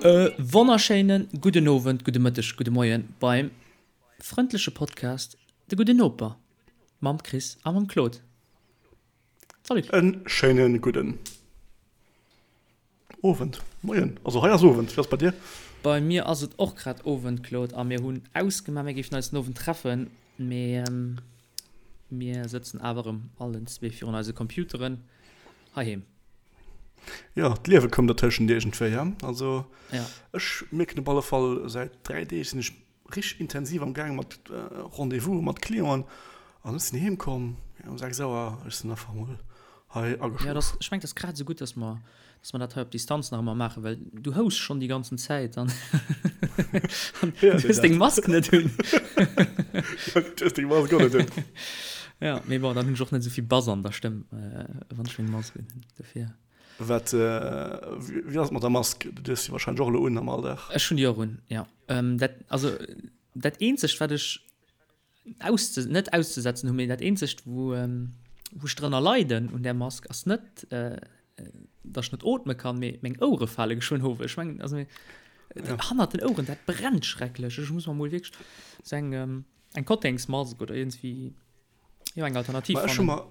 E wonnerschéine gudden Owend, gudde Mëtteg, gudde Moien beim frëndleche Podcast De Gudden Noper mam Chris a mam Claude. Salut Claude. En schéine gudden Owend, Moien. Also hei ass Owend, wéi ass et bei dir? Bei mir ass et och grad Owend, Claude, a mir hunn ausgemaach, mir géifen eis den Owend treffen, mee mir sëtzen awer erëm allen zwee virun eise Computeren heiheem. Jo, d'Liewe koum dertëschent iergendwéi, he? Also ech mierken op alle Fall, säit 3 Deeg sinn ech richteg intensiv am gaange mat Rendez-vouse mat Clienten an ech sinn heem komm um 6 Auer, ech sinn einfach mol hei ageschlof. Jo, dass, ech mengen, et ass grad esou gutt, dass mer, dass mer dat hei op Distanz nach ëmmer maachen, well du houss schonn déi ganzen Zäit an an du hues deng Mask net un. Du hues deng Mask och net un. Ja, mee bon, dann hunn ech och net esou vill Bass an der Stëmm, wann ech meng Mask un hunn, dofir. Wat, wéi ass et mat der Mask? Du hues se wahrscheinlech och elo un am Alldag. Ech hunn déi och un, jo. Dat, also dat eenzegt wat ech ausze, net auszesetzen hunn, mee dat eenzegt wou wou ech drënner leiden un där Mask ass net, datt ech net ootme kann, mee meng Ouere fale geschwënn of. Ech mengen, also hannert den Oueren, dat brennt schrecklech. Ech muss mer mol wierklech sou eng eng Kottengsmask oder iergendwéi, jo eng Alternativ fannen. Ech hu mer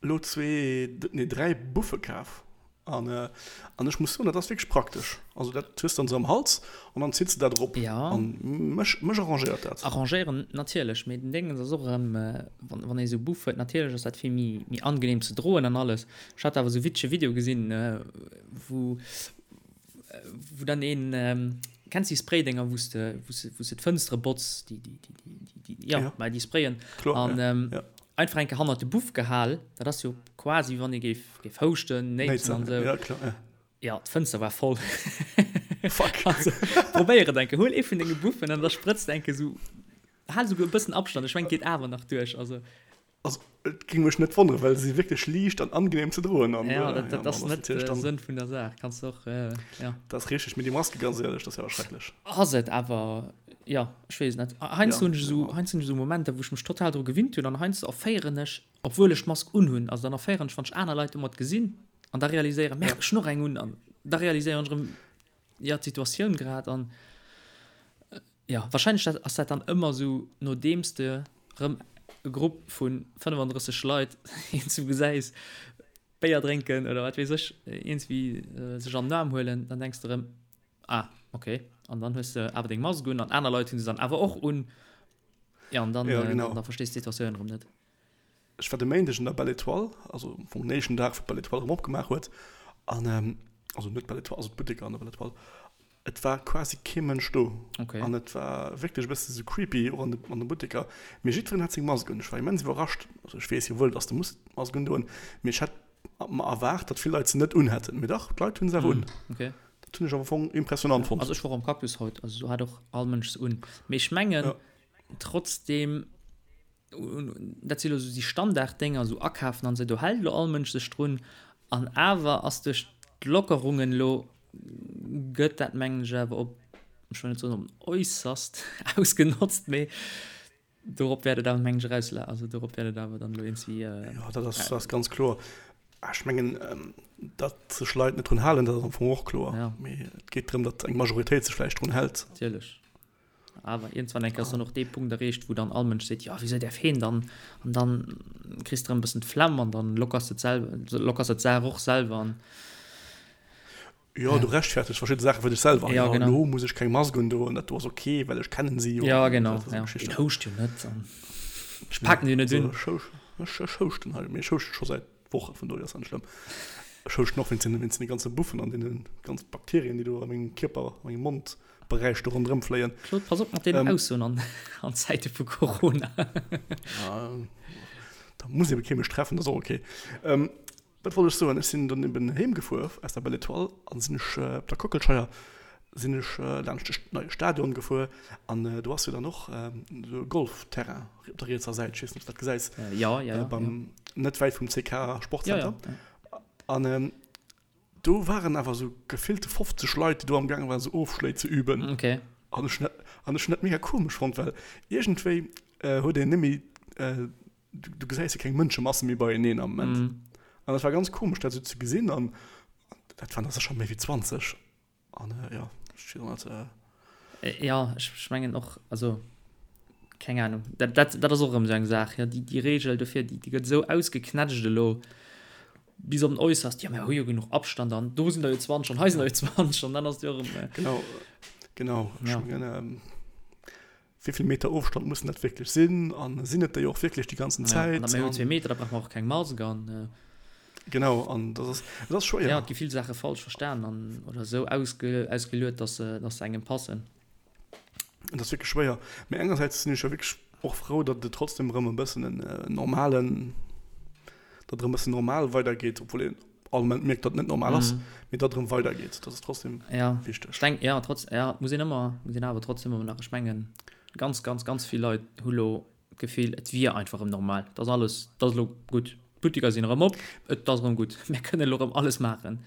Elo zwee, nee 3 Buffe kaf an an ech muss soen, dat ass wierklech praktesch. Also dat hues dann esou am Hals an dann zitts de dat erop an mech mech arrangéiert dat. Arrangéieren natierlech, mee den Déngens ass och erëm, wann wann ee sou Buff huet, natierlech ass dat vill méi méi angenehm ze droen an alles. Ech hat awer sou witzege Video gesinn, wou wou dann een, kenns déi Spraydénger wou s de wou s wou s de d'Fënstere botz, déi déi déi déi déi jo mä déi sprayen an einfach eng Kéier hannert de Buff gehal, dat ass jo quasi wéi wann ee géif géif houschten, néitsen an esou. Ja kloer, ja. Ja, d'Fënster war voll. Fuck. Also probéier et eng Kéier, huel ee vun denge Buffen an da sprëtz de eng Kéier esou, hal esouguer e bëssen Abstand, ech mengen et geet awer nach duerch, also. Also et géing mech net wonneren, well se si wierklech liicht an angenehm ze droen. An, ja, dat, dat ass net de Sënn vun der Saach. Kanns du och, äh, ja. Dat ass richteg, mee déi Maske, ganz éierlech, dat ass jo awer schrecklech. Ass et awer, ja, ech weess et net. Heiansdo hunn ech esou, heiansdo hunn ech esou Momenter, wou ech mech total dru gewinnt hunn an heiansdo erféieren ech, obwuel ech d'Mask unhunn, also dann erféieren ech, wann ech aner Leit domat gesinn an da realiséieren, merde, ech hunn och eng un an da realiséieren ech erëm, jo, d'Situatioun grad an. Jo, wahrscheinlech ass dat dann ëmmer esou, nodeems de rëm e Grupp vu 35 Leit iergendwou gesäis Béier drénken oder wat weess ech, iergendwéi sech an den Aarm huelen, dann denks de rëm, ah ok, an dann hues de awer deng Mask un an aner Leit hu se dann awer och un, jo, an dann, ja, genau. dann verstees de d'Situatioun erëm net. Ech war de Méindeg an der Belle Etoile, also am Fong den éischten Dag, wou d'Belle Etoile erëm opgemaach huet, an also net d'Belle Etoile, also d'Butteker an der Belle Etoile, Et war quasi kee Mënsch do. Okay. An et war wierklech e bësse sou creepy, och an de, an de Butteker. Mee jiddwereen hat seng Mask un. Ech war immens iwwerrascht. Also ech weess jo wuel, dass de muss d'Mask undoen, mee ech hätt mer erwaart, datt vill Leit se net unhätten. Mee dach, d'Leit hunn se awer un. Okay. Dat hunn ech am Fong impressionant fonnt. Also ech war och am Cactus haut, also do hat och all Mënsch se un. Mee ech mengen Ja. trotzdem, dat si lo sou déi Standarddénger, sou akafen an esou, do hält lo all Mënsch sech drun. An awer ass duerch d'Lockerungen elo, gëtt dat mengen ech awer op, ech wëll net soen op den äusserst ausgenotzt, mee dorop wäert et awer mengen ech erausla-, also dorop wäert et awer dann elo iergendwéi. Jo, dat ass, dat ass ganz kloer. Ech mengen, datt sech Leit net drun halen, dat ass am Fong och kloer. Mee et geet drëm, datt eng Majoritéit sech vläicht drun hält. Natierlech. Awer iergendwann eng Kéier ass dann och dee Punkt erreecht, wou dann all Mënsch seet, jo, wisou däerf heen dann? An dann kriss de erëm e bëssen d'Flemm an dann lockers de d'selwer, lockers de d'Saach och selwer an. Jo, du rechtfertegs verschidde Saache fir dech selwer. Jo, genau. Elo muss ech keng Mask undoen, dat do ass ok, well ech kennen si jo. Jo, genau, jo. Deen houscht jo net an ech paken deen net un. Ech, ech houschten hei, mee ech houschte scho säit Woche, vun dohier ass dat net schlëmm. Ech houschten och wéinst den ganze Buffen an deene ganz Bakterien, déi do a mengem Kierper, a mengem Mond Beräich do ronderëm fléien. Claude, pass op mat deenen Aussoen an an Zäite vu Corona. Da muss ebe kee mech treffen, dat ass och ok. Wat wollt ech soen? Ech sinn dann eben heem gefuer aus der Belle Etoile an sinn ech op der Kockelscheier sinn ech laanscht de neie Stadion gefuer an do ass jo dann och esou e Golfterrain op der rietser Säit, ech weess net, ob s du dat gesäis, Jo, jo, jo. beim net wäit vum CK Sportcenter. Jo, jo. An Do waren awer sou gefillte 50 Leit, déi do am gaange waren, sou Ofschléi ze üben. Okay. An ech hunn dat, an ech hunn dat mega komesch fonnt, well iergendwéi huet een net méi, du gesäis jo keng Mënschemasse méi beieneen am Moment. An dat war ganz komesch, dat sou ze gesinn. An dat waren der sécher méi wéi 20. An jo. Ech weess och net. Jo, ech mengen och, also keng Ahnung, dat, dat, dat ass och erëm esou eng Saach, jo, déi, déi Reegel dofir, déi, déi gëtt esou ausgeknätscht elo bis op den Äusserst, jo, mir hu jo genuch Abstand an do sinn der jo 20 an hei sinn der jo 20 an dann ass et jo erëm. Genau, genau. Ech mengen, wéi vill Meter Ofstand mussen dat wierklech sinn an sinn et der jo och wierklech déi ganzen Zäit? Ja, an mir hunn zwee Meter, da brauche mer och keng Mask an. Genau, an dat ass, et ass schwéier. Ja, et gi vill Saache falsch verstan an oder esou ausge, ausgeluet, dass se, dass se engem passen. Et ass wierklech schwéier. Mee engersäits sinn ech jo wierklech och frou, datt et trotzdem erëm e bëssen en normalen, datt erëm e bëssen normal weidergeet, obwuel een all Moment mierkt, datt et net normal ass, mee datt et erëm weidergeet. Dat ass trotzdem ja, wichteg. Ech denk, ja, trotz, ja, muss een ëmmer, muss een awer trotzdem ëmmer nach, ech mengen, ganz, ganz, ganz vill Leit hu lo d'Gefill, et wier einfach erëm normal, et ass alles, et ass elo gutt, d'Butteker sinn erëm op, et ass erëm gutt, mir kënnen elo erëm alles maachen.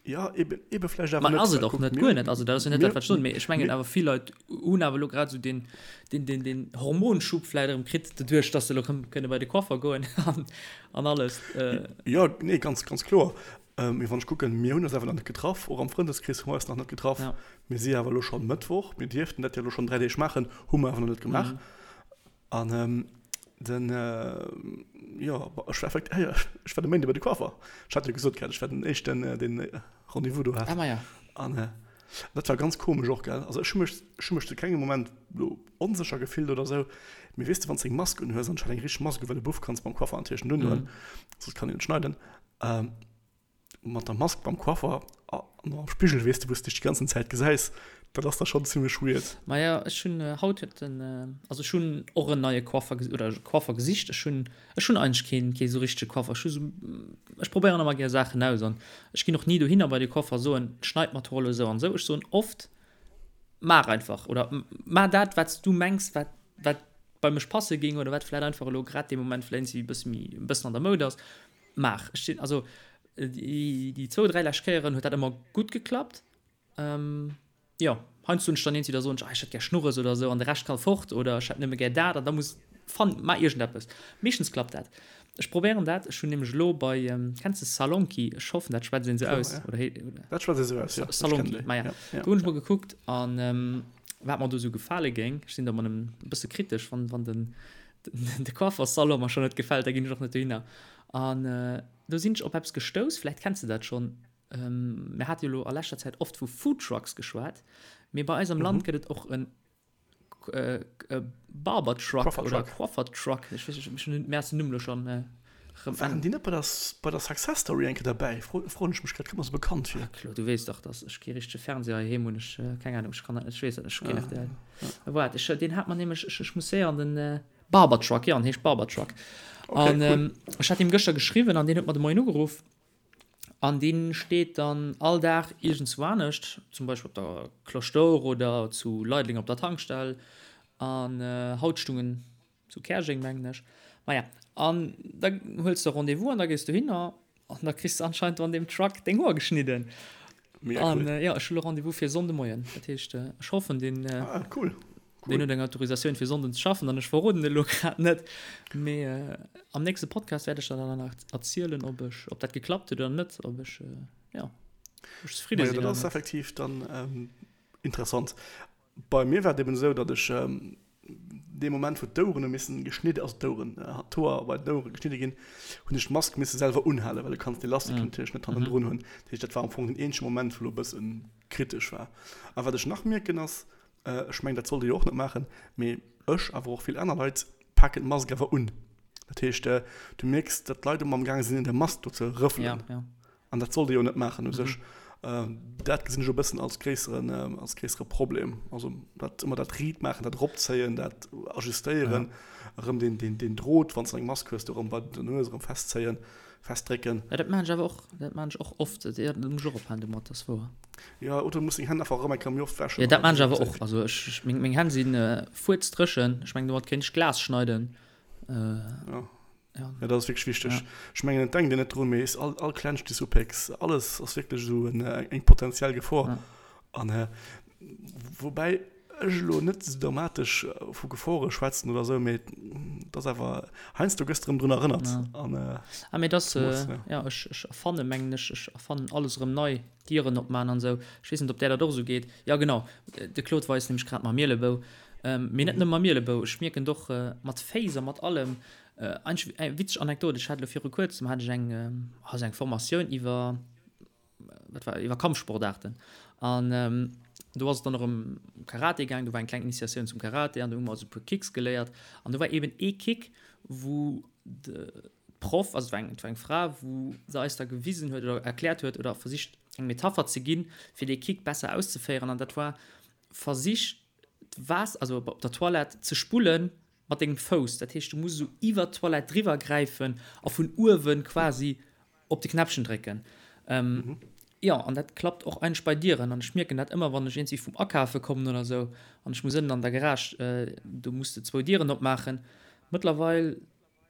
Ja, eben, eben vläicht awer net. Ass et och net, guer net. Also dat ass jo net dat, wat ech soen. Mee ech mengen awer vill Leit hunn awer elo grad esou deen, deen, deen, deen Hormonschub vläicht erëm kritt, doduerch, datt se elo erëm kënne bei de Coiffer goen an, an alles. Jo, nee, ganz, ganz kloer. Mee wann ech kucken, mir hunn eis awer nach net getraff, och am Frëndeskrees hu mer eis nach net getraff. Ja. Mir si awer elo scho Mëttwoch, mir dierften dat jo elo schonn 3 Deeg maachen, hu mer awer nach net gemaach. An den, jo, ech war effekt, ah jo, ech war de Méinde bei de Coiffer. Ech hat jo gesot gehat, ech war den éischten, deen Rendez-vous do hat. Ah, maja. An dat war ganz komesch och, gell. Also ech hu mech, ech hu mech zu kengem Moment lo onsécher gefillt oder sou. Mee weess de, wann s de eng Mask unhues, an ech hat eng richteg Mask u, well e Buff kanns beim Coiffer natierlech net undoen, soss kann een net schneiden. Mat der Mask beim Coiffer an am Spigel, weess de, wou s de dech déi ganzen Zäit gesäis, dat ass da schonn zimmlech weird. Maja, ech hunn haut huet den, also ech hunn och en neie Coiffer oder Coiffer gesicht. Ech hunn, ech hunn eigentlech keen, kee sou richtege Coiffer. Ech hu sou, ech probéieren ëmmer gär Saachen aus an ech ginn och ni dohinner bei de Coiffer a soen, schneit mer d'Hoer elo esou an esou. Ech soen oft, maach einfach oder maach dat, wat s du mengs, wat, wat bei mech passe géing oder wat vläicht einfach elo grad dee Moment vläicht e bësse méi, e bëssen an der Moud ass. Maach. Ech sinn, also déi, déi zwou, dräi lescht Kéieren huet dat ëmmer gutt geklappt. Ähm, jo, heiansdo hunn ech dann eent, da soen ech, ah, ech hätt gär Schnurres oder esou an de Rescht ka fort oder ech hätt nëmme gär dat an da muss, fann, maach iergendeppes. Meeschtens klappt dat. Ech probéieren dat. Ech hunn nämlech elo bei, kenns de Salonki? Ech hoffen, dat schwätzt een esou aus, oder hee, oder? Dat schwätzt ee sou aus, jo. Salonki, maja. Do hunn ech mol gekuckt an wat mer do esou gefale géing. Ech sinn da ëmmer e bësse kritesch, wann, wann den, de Coiffersalon mer schonn net gefält, da ginn ech och net dohinner. An do sinn ech op eppes gestouss, vläicht kenns de dat schonn, mir hate jo elo a leschter Zäit oft vu Foodtrucks geschwat, mee bei eis am Land gëtt et och e Barbertruck oder Coiffertruck, ech weess net, ech hunn mir ass den Numm elo schonn erëm. Waren déi net bei der bei der Success Story eng Kéier derbäi? Froen ech mech grad, kënnt mer sou bekannt vir. Claude, du weess dach, dass ech kee richtege Fernseher heiheem hunn, ech, keng Ahnung, ech kann dat net, ech weess dat net, ech hu keen rtl. Waart, ech, deen hat mer nämlech, ech, ech muss séier an den Barber Truck, jo, en heescht Barber Truck. Okay, an cool. ech hat him gëschter geschriwwen an deen huet mer de Moien ugeruff. An dee steet dann all Dag iergendzwou anescht, zum Beispill op der Cloche d'Or oder zu Leideleng op der Tankstell. An haut stung en zu Käerjeng, mengen ech. Maja, an da huels de Rendez-vous an da gees dohinner an da kriss de anscheinend do an deem Truck deng Hoer geschnidden. Mega cool. An jo, ech hu lo Rendez-vous fir Sonnde Moien. Dat heescht, ech hoffen, deen, ah, cool. Cool. deen huet eng Autorisatioun fir Sonnden ze schaffen an ech verroden et elo grad net. Mee am nächste Podcast wäert ech der dann nach erzielen, ob ech, ob dat geklappt huet oder net, ob ech, jo, ob ech zefridde sinn. Dat ass effektiv dann interessant. Bei mir war et eben esou, datt ech dee Moment, wou d'Oueren hu missen geschnidde, also d'Oueren, d'Hoer bei den Ouere geschnidde ginn, hunn ech d'Mask misse selwer unhalen, well du kanns d'Elastik natierlech net hannendrun hunn. Dat heescht, dat war am Fong den eenzege Moment, wou elo e bësse kritesch war. A wat ech nach mierken ass, ech mengen, dat sollt ee jo och net maachen, mee ech, awer och vill aner Leit, paken d'Mask awer un. Dat heescht, du mierks, datt d'Leit ëmmer amgaange sinn, un der Mask do ze rëffelen. An dat sollt ee jo net maachen u sech. Dat gesinn ech e bëssen als gréisseren, als gréissere Problem. Also dat ëmmer dat riit maachen, dat eropzéien, dat ajustéieren, erëm deen, deen, deen Drot, wann s de eng Mask hues, do erëm bei der Nues erëm festzéien, festdrécken. Ja, dat maachen ech awer och, dat maachen ech och oft. Jo, do muss ech och ophalen domat, dat ass wouer. Jo, oder du muss deng Hänn einfach erëm eng Kéier méi oft wäschen. Jo, dat maachen ech awer och. Also ech, ech, meng, meng Hänn si fuerzdréchen. Ech mengen, domat kéint ech Glas schneiden. Jo. Ja. Ja, dat ass wierklech wichteg. Ja. Ech mengen, et denkt een net drun, mee es all, all klengst Disupex, alles ass wierklech esou en, eng potenziell Gefor. Ja. An äh, woubäi, Ech elo net esou dramatesch vu Gefore schwätzen oder esou, mee et ass awer, heiansdo gëss de erëm drun erënnert. An, ah, mee dass, jo, ech, ech erfanne mengen ech, ech erfannen alles erëm nei, Dieren opman an esou. Ech weess net, ob där dat och esou geet. Jo, genau, de Claude weist nämlech grad mam Mielebou. Mee net nëmme mam Mielebou, ech mierken et och mat Féiss a mat allem. Eigentlech eng witzeg Anekdot, ech hat elo viru kuerzem hat ech eng, also eng Formatioun iwwer, wat war, iwwer Kampfsportaarten. An do ass et dann och ëm Karate gaang, do war eng kleng Initiatioun zum Karate an do hu mer also e puer Kicks geléiert. An do war eben ee Kick, wou de Proff, also et war eng, et war eng Fra, wou se eis da gewisen huet oder erkläert huet oder versicht eng Metapher ze ginn, fir dee Kick besser auszeféieren. An dat war, versich d'Waasser, also op der Toilette ze spullen mat dengem Fouss. Dat heescht, du muss esou iwwert d'Toilette driwwer gräifen a vun uewe quasi op de Knäppchen drécken. Ähm, jo, an dat klappt och eigentlech bei Dieren. An ech mierken dat ëmmer, wann ech iergendwéi vum Akafe kommen oder esou an ech muss ënnen an der Garage, do muss de zwou Dieren opmaachen. Mëttlerweil,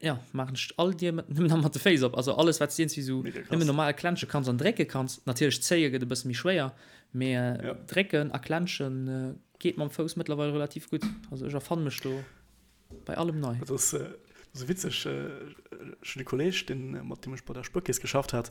jo, maachen ech all Dier mat, nëmmen nach mat de Féiss op. Also alles, wat s de iergendwéi esou nëmmen normal klensche kanns an drécke kanns. Natierlech zéie gëtt e bësse méi schwéier, mee drécken a klenschen geet mam Fouss mëttlerweil relativ gutt. Also ech erfanne mech do. Bei allem nei. Dat ass esou witzeg. Ech hunn e Kolleeg, deen, mat deem ech bei der Spuerkeess geschafft hat,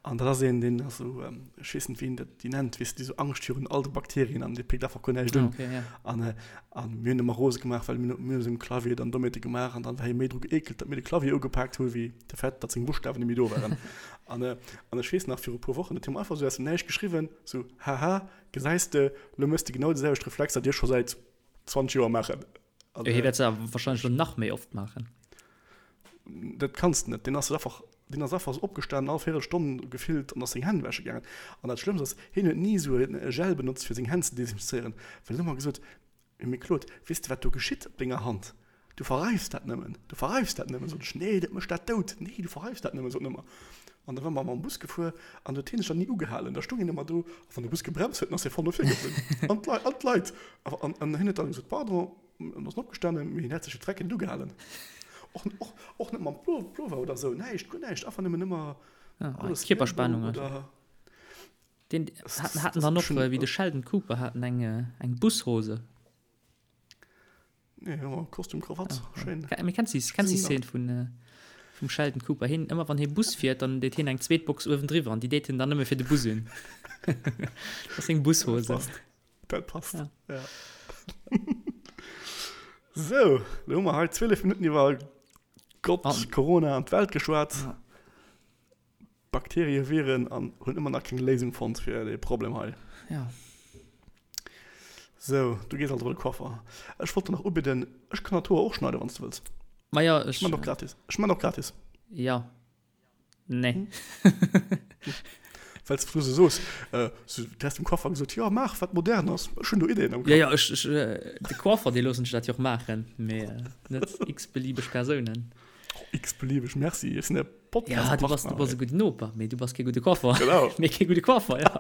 an dat ass een, deen ass esou, ech weess net, wéi een dat déi nennt, weess de, déi esou Angscht virun all de Bakterien an dee péckt einfach guer näischt un. Okay, ja. An, an mir hunn ëmmer rose gemaach, well mir hunn esou um Clavier dann domadde gemaach an dann war hie méi dru geekelt, datt mir de Clavier ugepaakt hu wéi de Fait, datt seng Buschtawen net méi do waren. An, an ech weess nach, viru e puer Wochen huet hie mer einfach esou aus dem Näischt geschriwwen, esou, Haha, gesäis de, lo méchs de genau déi selwecht Reflexer, déi ech scho säit 20 Joer maachen. Also, hie wäert se awer wahrscheinlech lo nach méi oft maachen. Dat kanns de net. Deen ass einfach, deen ass einfach opgestanen all Véierelstonn gefillt an ass seng Hänn wäsche gaangen. An dat Schlëmmst ass, hien huet ni esou e Gel benotzt fir seng Hänn ze desinfizéieren, well en huet ëmmer gesot, Mee Claude, weess de wat do geschitt op denger Hand? Du verreifs dat nëmmen, du verreifs dat nëmmen. Sot ech, nee, dat mécht dat dout. Nee, du verreifs dat nëmmen, sot en ëmmer. An da war mer mam Bus gefuer an huet hien sech dann ni ugehalen. Da stung hien ëmmer do a wann de Bus gebremst huet, dann ass hie voll no vir geflunn. An d'Leit, an d'Leit. An, an hien huet dann gesot, Pardon, an ass opgestanen, mee hien hätt sech fir d'Drecken net ugehalen. Och, och, och net mam Plover oder esou, näischt, guer näischt, einfach nëmmen ëmmer alles Kierperspannung oder. Deen haten dann och, wéi de Sheldon Cooper, haten eng, eng Bushose. Nee, ja, Kostüm, Krawatt, ah, schéin. Mee kenns du kenns déi Szene vun äh, vum Sheldon Cooper? Hien, ëmmer wann hie Bus fiert, dann deet hien eng zweet Box uewendriwwer an déi deet hien dann nëmme fir de Bus un. Dat ass seng Bushose. Dat passt. Dat passt. Ja. ja. Sou, lo hu mer hei 12 Minutten iwwer Gott, an, Corona an d'Welt geschwat. Ja. Bakterie, Viren an hunn ëmmer nach keng Léisung fonnt fir dee Problem hei. Ja. Sou, du gees also bei de Coiffer. Ech wollt der nach ubidden, ech kann der d'Hoer och schneiden, wann s du wëlls. Ma ja, ech. Ech man och gratis. Ech man och gratis. Ja. Nee. Well s du sou soos, sou, du häss dem Coiffer gesot, jo, maach wat modern ass. Ech hunn do Ideen am Kapp. Ja, ja, ech, ech, de Coiffer, dee loossen ech dat jo och maachen, mee net x-beliebeg Persounen. X-beliebeg, merci. Ech sinn e Podcast Ja, du bass, du bass e gudden Noper, mee du bass kee gudde Coiffer. Genau. Mee kee gudde Coiffer, ja.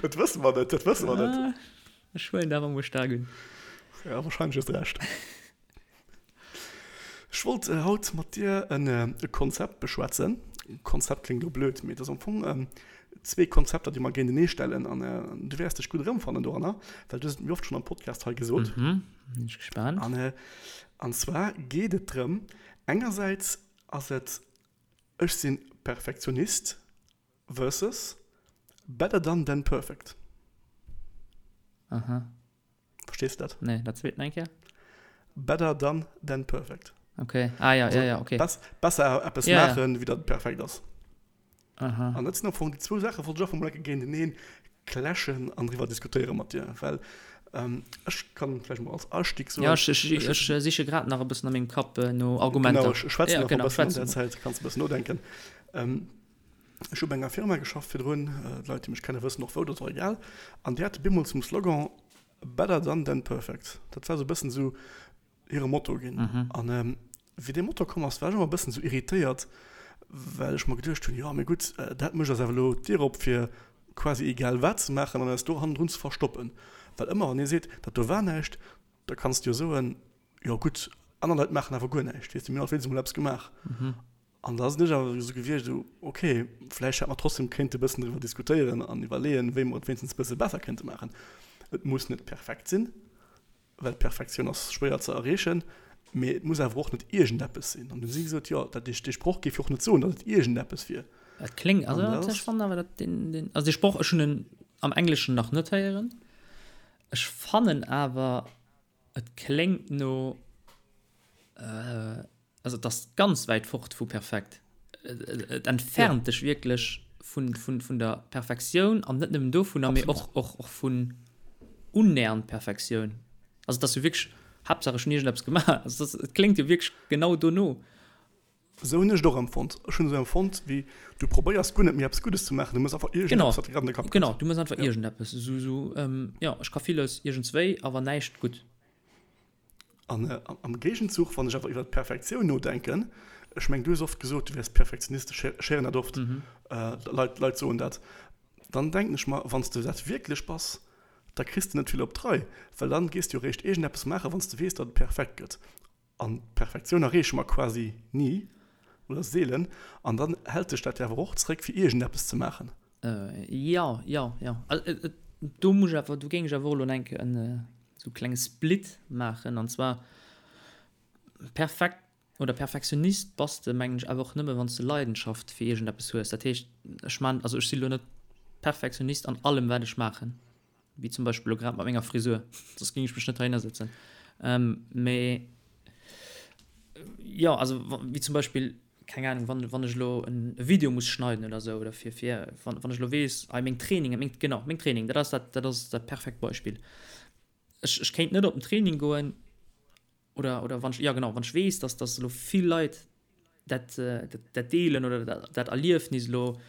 Dat wësse mer net, dat wësse mer net. Ah, ech huelen dat awer mol staark un. Ja, wahrscheinlech hues de Recht. Ech wollt haut mat dir en e Konzept beschwätzen. Konzept kléngt elo blöd, mee et ass am Fong zwee Konzepter, déi mer géintenee stellen an du wäers dech gutt erëmfannen doranner, well du hues et mir oft schonn am Podcast hei gesot. Mhm, sinn ech gespaant. An, an zwar geet et drëm, engersäits ass et ech sinn Perfektionist versus better done than perfect. Aha. Verstees de dat? Nee, dat zweet nach eng Kéier. Better done than perfect. Okay, ah ja, ja, ja, okay. Bess, besser eppes ja, maachen, ja. wéi datt et perfekt ass. Aha. An dat sinn am Fong déi zwou Saache wollt ech einfach mol eng Kéier géinteneen clashen an driwwer diskutéiere mat dir, well ähm, ech kann vläicht mol als Astieg soen. Ja, ech, ech, ech, ech siche grad nach e bëssen a mengem Kapp äh, no Argumenter. Genau, ech schwätzen ja, nach genau, e bëssen an der Zäit, kanns e bëssen nodenken. Ähm, ech hu bei enger Firma geschafft virdrun, äh, d'Leit, déi mech kenne wëssen och wou, dat ass och egal. An déi hate bemol zum Slogan Better done than perfect. Dat war sou e bëssen sou hire Motto ginn. An wéi dee Motto komm ass, war ech ëmmer e bëssen sou irritéiert, well ech mer geduecht hunn, jo mee gutt, dat mécht eis awer elo d'Dier op fir quasi egal wat ze maachen an eis do hannendrun ze verstoppen. Well ëmmer wann ee seet, dat do war näischt, da kanns de jo soen, jo gutt, aner Leit maachen awer guer näischt, weess de, mir hunn alt wéinstens emol eppes gemaach. An da sinn ech awer esou gewiescht, esou, ok, vläicht hätt mer trotzdem kéinte bëssen driwwer diskutéieren an iwwerleeën, wéi mer et wéinstens e bësse besser kéinte maachen. Et muss net perfekt sinn. Well d'Perfektioun ass schwéier ze erreechen, mee et muss awer och net iergendeppes sinn. An du si gesot, jo, dat dee Sproch géif jo och net soen, datt et iergendeppes wier. Et kléngt, also ech fannen awer, datt deen, deen, also dee Sproch, ech hunn en am Engleschen nach net héieren, ech fannen awer, et kléngt no, Also et ass ganz wäit fort vu perfekt. Et entfernt dech wierklech vun, vun, vun der Perfektioun an net nëmmen dovunner, mee och, och, och vun unnähernd Perfektioun. Also et ass jo wierklech, Haaptsaach ech hunn iergendeppes gemaach. Also et ass, et kléngt jo wierklech genau dono. Esou hunn ech et och empfonnt. Ech hunn esou empfonnt, wéi du probéiers guer net méi eppes Guddes ze maachen, du méchs einfach iergendeppes, wat dir grad an de Kapp kënnt. Genau, du méchs einfach iergendeppes. Esou, esou, jo, ech ka villes iergendswéi, awer näischt gutt. An am Géigenzuch, wann ech awer iwwer d'Perfektioun nodenken, ech mengen, du hues oft gesot, du wäers Perfektionist, ech héieren dat oft, Leit, Leit soen dat, dann denken ech mer, wann s de dat wierklech bass, da kriss de net vill op d'Rei, well dann gees de jo eréischt iergendeppes maachen, wann s de weess, datt et perfekt gëtt. An d'Perfektioun erreeche mer quasi ni oder seelen, an dann hält dech dat jo awer och zréck, fir iergendeppes ze maachen. Jo, jo, jo. Do muss ech awer, do géing ech awer och elo enk en esou klenge Split maachen. An zwar perfekt oder Perfektionist bass de, mengen ech, awer och nëmme wann s de Leidenschaft fir iergendeppes hues. Dat heescht, ech man, also ech si lo net Perfektionist an allem wat ech maachen. Wéi zum Beispill elo grad mat menger Frisur, soss géing ech mech net heihinner sëtzen. Mee jo, also wéi zum Beispill, keng Ahnung, wann, wann ech elo en Video muss schneiden oder sou, oder fir, fir, wann, wann ech elo weess, hei meng Trainingen, meng, genau, meng Training, dat ass dat, dat ass dat perfekt Beispill. Ech, ech kéint net op den Training goen oder, oder wann ech, jo genau, wann ech weess, dass, dass elo vill Leit dat, dat, dat deelen oder dat, dat Erliefnis elo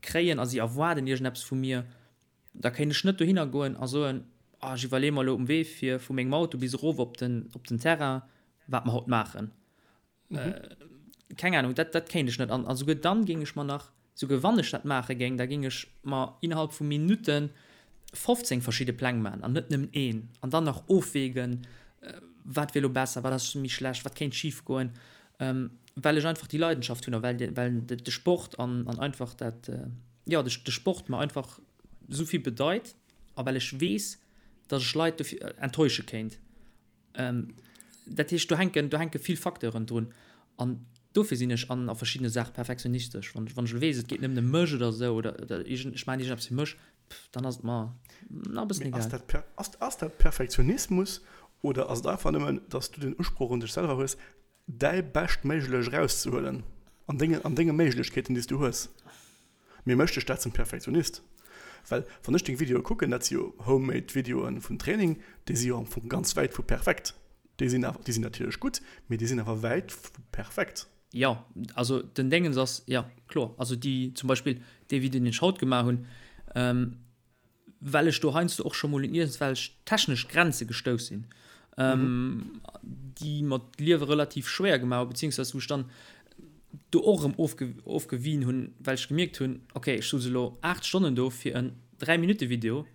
kréien a si erwaarden iergendeppes vu mir, Da kéint ech net dohinner goen a soen, ah ech iwwerleeë mer elo um Wee fir vu mengem Auto bis erof op den, op den Terrain, wat mer haut maachen. Keng Ahnung, dat, dat kéint ech net. An, a souguer dann géing ech mer nach, souguer wann ech dat maache géing, da géing ech mer innerhalb vu Minutte 15 verschidde Pläng maachen an net nëmmen een. An dann nach ofwägen, wat wier elo besser, wat ass méi schlecht, wat kéint schif goen, well ech einfach déi Leidenschaft hunn a well, well de Sport an, an einfach dat, jo, de, de Sport mer einfach esou vill bedeit a well ech weess, datt ech Leit dofir enttäusche kéint. Dat heescht, do hänken, do hänke vill Facteuren drun an dofir sinn ech an a verschiddene Saache perfektionistesch. Wann, wann ech elo weess, et geet nëmmen ëm mech oder esou oder, oder iergend, ech maachen iergendeppes fir mech, pff, dann ass et mer nach e bëssen egal. Mee ass dat, ass dat Perfektionismus oder ass et einfach nëmmen, datt s du den Usproch un dech selwer hues, däi Beschtméiglech erauszehuelen an denge, an denge Méiglechkeeten, déi s du hues. Mee mécht dech dat zum Perfektionist? Well wann ech deng Videoe kucken, dat si jo homemade Videoe vun Training, déi si jo am Fong ganz wäit vu perfekt. Déi sinn awer, déi sinn natierlech gutt, mee déi sinn awer wäit vu perfekt. Jo, also den Déngens ass, jo, kloer. Also déi zum Beispill dee Video, deen ech haut gemaach hunn, well ech do heiansdo och scho mol un iergendwelch technesch Grenze gestouss sinn, déi mer d'Liewe relativ schwéier gemaach hunn, beziehungsweise wou ech dann do och erëm ofge ofgewien hunn, well ech gemierkt hunn, okay, ech souz elo 8 Stonnen do fir en 3 Minutte Video,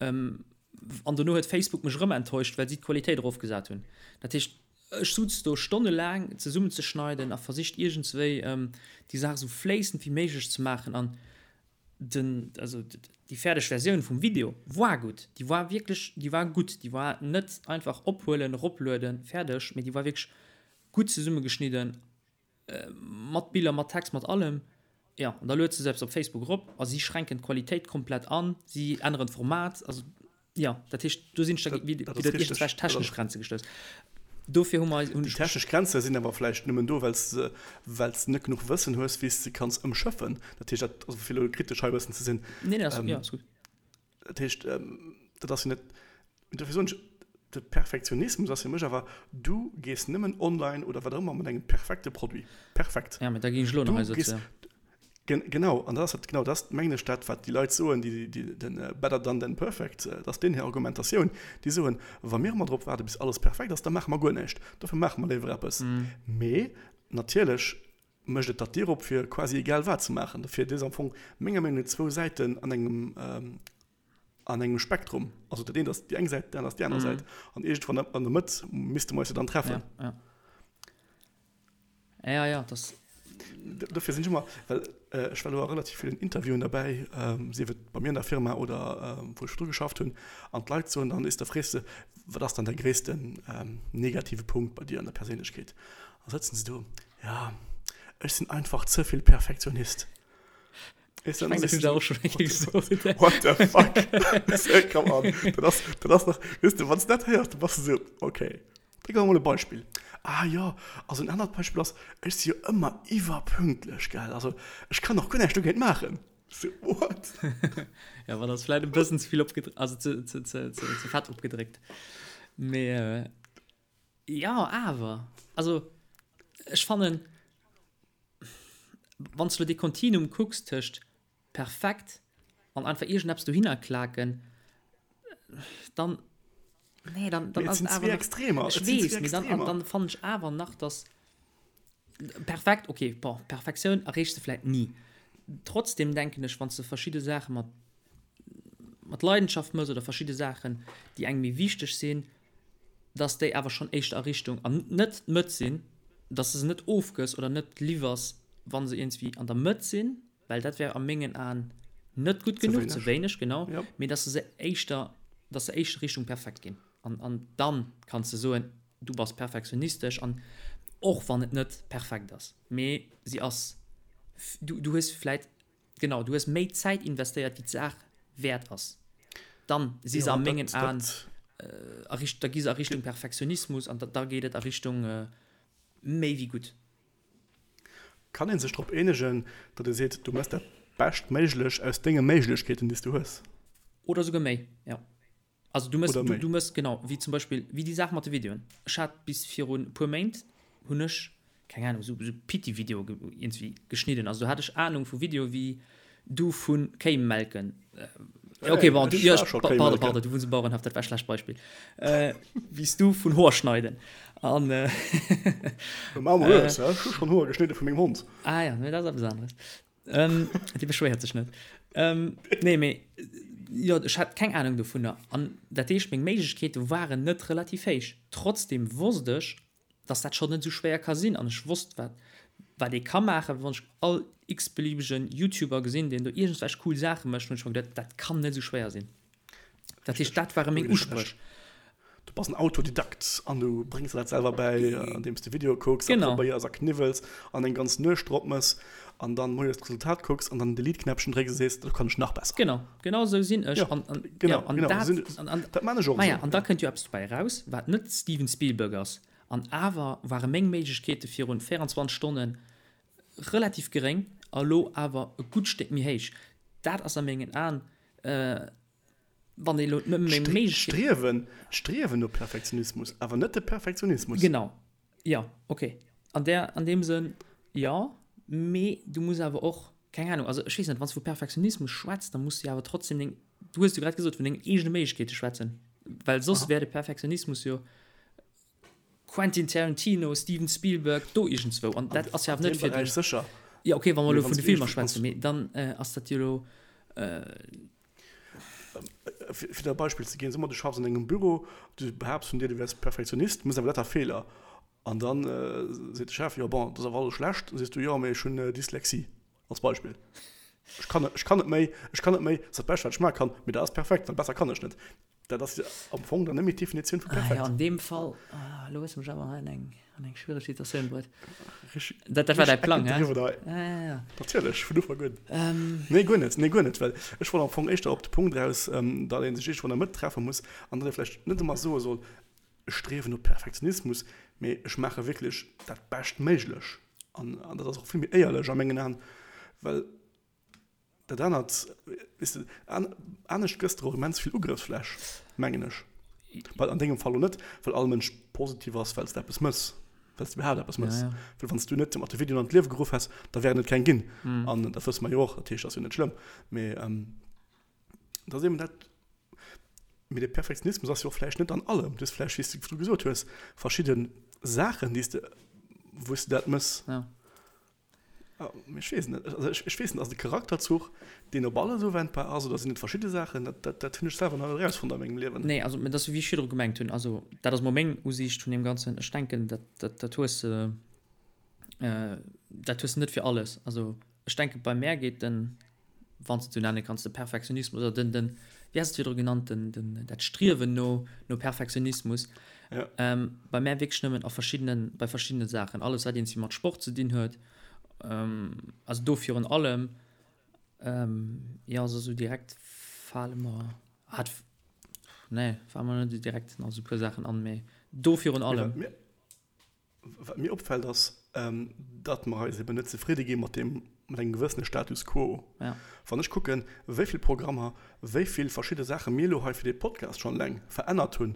an dono huet Facebook mech erëm enttäuscht, well si d'Qualitéit erofgesat hunn. Dat heescht, ech suz do stonnelaang zesummenzeschneiden a versicht iergendswéi déi Saach esou fléissend wéi méiglech ze maachen an den, also déi fäerdeg Versioun vum Video war gutt, déi war wierklech, déi war gutt, déi war net einfach ophuelen, eroplueden, fäerdeg, mee déi war wierklech gutt zesummegeschnidden, mat Biller, mat Text, mat allem. Jo, an da lueds de se eppes op Facebook erop a si schränken d'Qualitéit komplett an, si änneren d'Format, also. Jo, dat heescht, do sinn ech da widder iergendwelch technesch Grenze gestouss. Dofir hu mer eis. Déi technesch Grenze sinn awer vläicht nëmmen do, well s de, well s de net genuch Wëssen hues, wéi s de kanns ëmschëffen. Dat heescht, dat, also fir elo kritesch hei e bëssen ze sinn. Nee, nee, ass, jo, ass gutt. Dat heescht, dat ass jo net, dofir soen ech, de Perfektionismus ass fir mech awer, du gees nëmmen online oder wat och ëmmer mat engem perfekte Produit. Perfekt. Ja, mee da géing ech elo nach hei sëtzen. Genau, an dat ass genau dat, mengen ech, dat wat déi Leit soen, déi den better done than perfect, dat ass deenen hir Argumentatioun, déi soen, wa mir ëmmer drop waarde bis alles perfekt ass, da maache mer guer näischt, dofir maache mer léiwer eppes. Mee natierlech mécht et der d'Dier op fir quasi egal wat ze maachen. Dofir, dat ass am Fong menger Meenung no zwou Säiten an engem an engem Spektrum. Also dat eent ass déi eng Säit, dat anert ass déi aner Säit an iergendwann an der Mëtt misste mer eis jo dann treffen. Ja, ja, das. Dofir sinn ech ëmmer, well ech war elo a relativ villen Interviewen derbäi, sief et bei mir an der Firma oder wou ech virdru geschafft hunn, an d'Leit soen dann, is, da frees de, wat ass dann däi gréissten negative Punkt bei dir an der Perséinlechkeet? Da sëtzen se do, ja, ech sinn einfach ze vill Perfektionist. Ech mengen, dat hunn se och schonn eng Kéier gesot. What the fuck? Come on, dat ass, dat ass nach, weess de, wann s de dat héiers, da bass de esou, okay. Da gi mer mol e Beispill. Ah jo, also en anert Beispill ass, ech si jo ëmmer iwwerpünktlech, gell, also ech kann och guer näischt dogéint maachen. So, what? Ja, ma dat ass vläit e bëssen ze vill opgedréckt, also ze, ze, ze, ze, ze fett opgedréckt. Mee jo, awer, also ech fannen, wann s de elo dee Kontinuum kucks tëscht perfekt an einfach iergendeppes dohinner klaken, dann, nee, dann, dann ass et awer nach, Extremer. Ech weess, mee dann, dann fannen ech awer nach, dass perfekt, okay, bon, Perfektioun erreechs de vläit ni. Trotzdem denken ech, wann s de verschidde Saache mat, mat Leidenschaft mëss oder verschidde Saachen, déi engem méi wichteg sinn, dass déi awer schonn éischter a Richtung, an net d'Mëtt sinn, dass de se net ofgëss oder net liwwers, wa se iergendswéi an der Mëtt sinn, well dat wär a mengen Aen net gutt genuch, ze wéineg, genau, mee dass se éischter, dass se éischter Richtung perfekt ginn. An, an dann kanns de soen, du bass perfektionistesch an och wann et net perfekt ass, mee si ass, du, du hues vläit, genau, du hues méi Zäit investéiert wéi d'Saach wäert ass. Dann si se a mengen Aen a Richt, da gi se a Richtung Perfektionismus an da, da geet et a Richtung méi wéi gutt. Kann ee sech drop eenegen, datt ee seet, du méchs dat Beschtméiglech aus denge Méiglechkeeten, déi s du hues? Oder souguer méi, jo. Also du méchs, du méchs, genau, wéi zum Beispill, wéi déi Saach mat de Videoen. Ech hat bis virun e puer Méint, hunn ech, keng Ahnung, esou Pitti-Videoe iergendwéi geschnidden. Also do hat ech Ahnung vu Videoe wéi du vu Kéi melken. Okay, bon, du, ja, pardon, pardon, du wunns um Bauerenhaff, dat war e schlecht Beispill. Wéi s du vun Hoer schneiden. An. Ech hu schonn Hoer geschnidde vu mengem Hond. Ah ja, mee dat ass eppes aneres. Dee beschwéiert sech net. Nee, mee jo, ech hat keng Anung dovunner. An dat heescht, meng Méiglechkeete waren net relativ héich. Trotzdeem wosst ech, dass dat schonn net esou schwéier ka sinn an ech wosst wat wat ee ka maachen. Wann ech all x-beliebegen YouTuber gesinn, deen do iergendwelch cool Saache mécht, hunn ech mer geduet, dat kann net esou schwéier sinn. Dat heescht, dat ware meng Uspréch. Du bass en Autodidakt an du bréngs der dat selwer bäi, andeems de Videoe kucks a probéiers a kniwwels an eng ganz Nuecht drop mëss an dann moies d'Resultat kucks an dann den Delete-Knäppchen drécks a sees, dat kann ech nach besser. Genau, genau esou sinn ech. An, an, genau, ja, an genau, dat, an, an, dat man ech och. Maja, an da kënnt jo eppes dobäi eraus, wat net Steven Spielberg ass. An awer ware meng Méiglechkeete virun 24 Stonnen relativ geréng a lo awer e gutt Stéck méi héich. Dat ass a mengen Aen, wann ee lo net méi Méiglechkeeten. D'Striewen, d'Striewen no Perfektionismus, awer net de Perfektionismus. Genau, jo, okay. An där, an deem Sënn, jo. Mee du muss awer och, keng Ahnung, also ech weess net, wann s du vu Perfektionismus schwätz, da muss du jo awer trotzdem deng, du hues jo grad gesot, vun dengen eegene Méiglechkeete schwätzen, well soss wär de Perfektionismus jo Quentin Tarantino, Steven Spielberg, do iergendzwou. An dat ass jo awer net fir den. Sécher. Jo, okay, wa mer elo vun de Filmer schwätzen, mee dann ass dat jo elo. Fir der e Beispill ze ginn, Soe mer, du schaffs an engem Büro, du behaapts vun dir, du wäers Perfektionist, méchs awer lauter Feeler. An da seet de Chef, jo bon, dat ass awer alles schlecht. Da sees du, jo, mee ech hunn Dyslexie, als Beispill. Ech kann, ech kann net méi, ech kann net méi, dat ass dat Bescht, wat ech maache kann, mee dat ass perfekt, well besser kann ech net. Dat ass am Fong dann net méi d'Definitioun vu perfekt. Ah jo, an deem Fall, elo hues de mech awer hei an eng, an eng schwiereg Situatioun bruet. Dat, dat war däi Plang, hä? Ja, ja, ja. Natierlech, vun Ufank un. Nee, guer net, nee, guer net, well ech wollt am Fong éischter op de Punkt eraus, datt ee sech iergendwou an der Mëtt treffe muss an datt ee vläicht net ëmmer soe soll, ech striewen no Perfektionismus, mee ech maache wierklech dat Beschtméiglech. An, an dat ass och vill méi éierlech a mengen Aen, well Dat anert, weess de, anescht gëss de och immens vill Ugrëffsfläch, mengen ech. Well an dengem Fall lo net, well all Mënsch positiv ass, well s de eppes mëss, well s de iwwerhaapt eppes mëss. Well wann s du net mat de Videoen an d'Liewe geruff häss, da wären et keng ginn. An dat wësse mer jo och, dat heescht, dat ass jo net schlëmm. Mee dat ass eben dat, mee de Perfektionismus ass jo och vläicht net an allem. Du hues vläicht, wéi s du gesot hues, verschidde Saachen, déi s de, wou s de dat mëss. Ech weess net. Also ech, ech weess net, ass et e Charakterzuch, deen op alles uwendbar ass oder sinn et verschidde Saachen? Dat, dat, dat hunn ech selwer nach net erausfonnt a mengem Liewen. Nee, also dat ass wéi ech virdru gemengt hunn. Also dat ass mol meng Usiicht vun deem Ganzen. Ech denken, dat, dat, dat hues de. Dat hues de net fir alles. Also ech denke bei mär geet den, wann s de et esou nenne kanns, de Perfektionismus oder den, den, wéi has de et virdru genannt, den, den, dat Striewen no, no Perfektionismus, ja. ähm, bei mär wierklech nëmmen a verschiddenen, bei verschiddene Saachen. Alles wat iergendwéi mat Sport ze dinn huet, ähm, also do virun allem, ähm, jo, also esou direkt fale mer, ah, nee, fale mer net esou direkt nach esou e puer Saachen an, mee do virun allem. Mee wat mir, Wat mir opfält ass, datt mer eis eben net zefridde gi mat deem, mat engem gewëssene Status quo. Ja. Wann ech kucken, wéi vill Programmer, wéi vill verschidde Saache mir elo hei fir dee Podcast schonn eleng verännert hunn,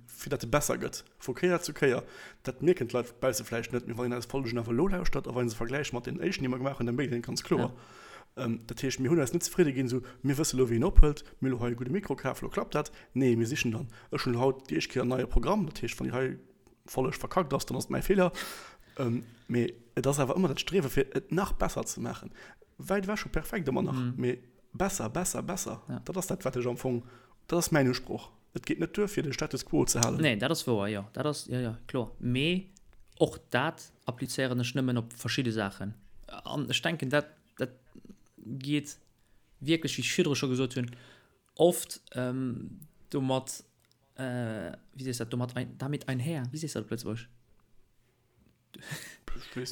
fir datt e besser gëtt, vu Kéier zu Kéier, dat mierken d'Leit bausse vläicht net, mee wann een eis Folgen awer elo lauschtert a wann ee se vergläicht mat deenen éischten, déi mer gemaach hunn, da mierkt een et ganz kloer. Dat heescht, mir hunn eis net zefridde ginn, esou, mir wësse elo, wéi een ophëlt, mir hu elo hei e gudde Mikro kaf, elo klappt dat. Nee, mir sichen dann, ech hunn elo haut déi éischt Kéier en neie Programm, dat heescht, wann déi hei Folleg verkackt ass, dann ass et mäi Feeler. Mee et ass awer ëmmer dat Striewe fir et nach besser ze maachen. Wäit ewech vu perfekt ëmmer nach, mee besser, besser, besser. Dat ass dat, wat ech am Fong, dat ass mäin Usproch. Et geet net duer, fir de Status quo ze halen. Nee, dat ass wouer, jo. Dat ass, jo, jo, kloer. Mee och dat applizéieren ech nëmmen op verschidde Saachen. An ech denken, dat, dat geet wierklech, wéi ech virdru scho gesot hunn, oft domat, wéi sees dat, domat ein, damit einher, wéi sees dat op Lëtzebuergesch?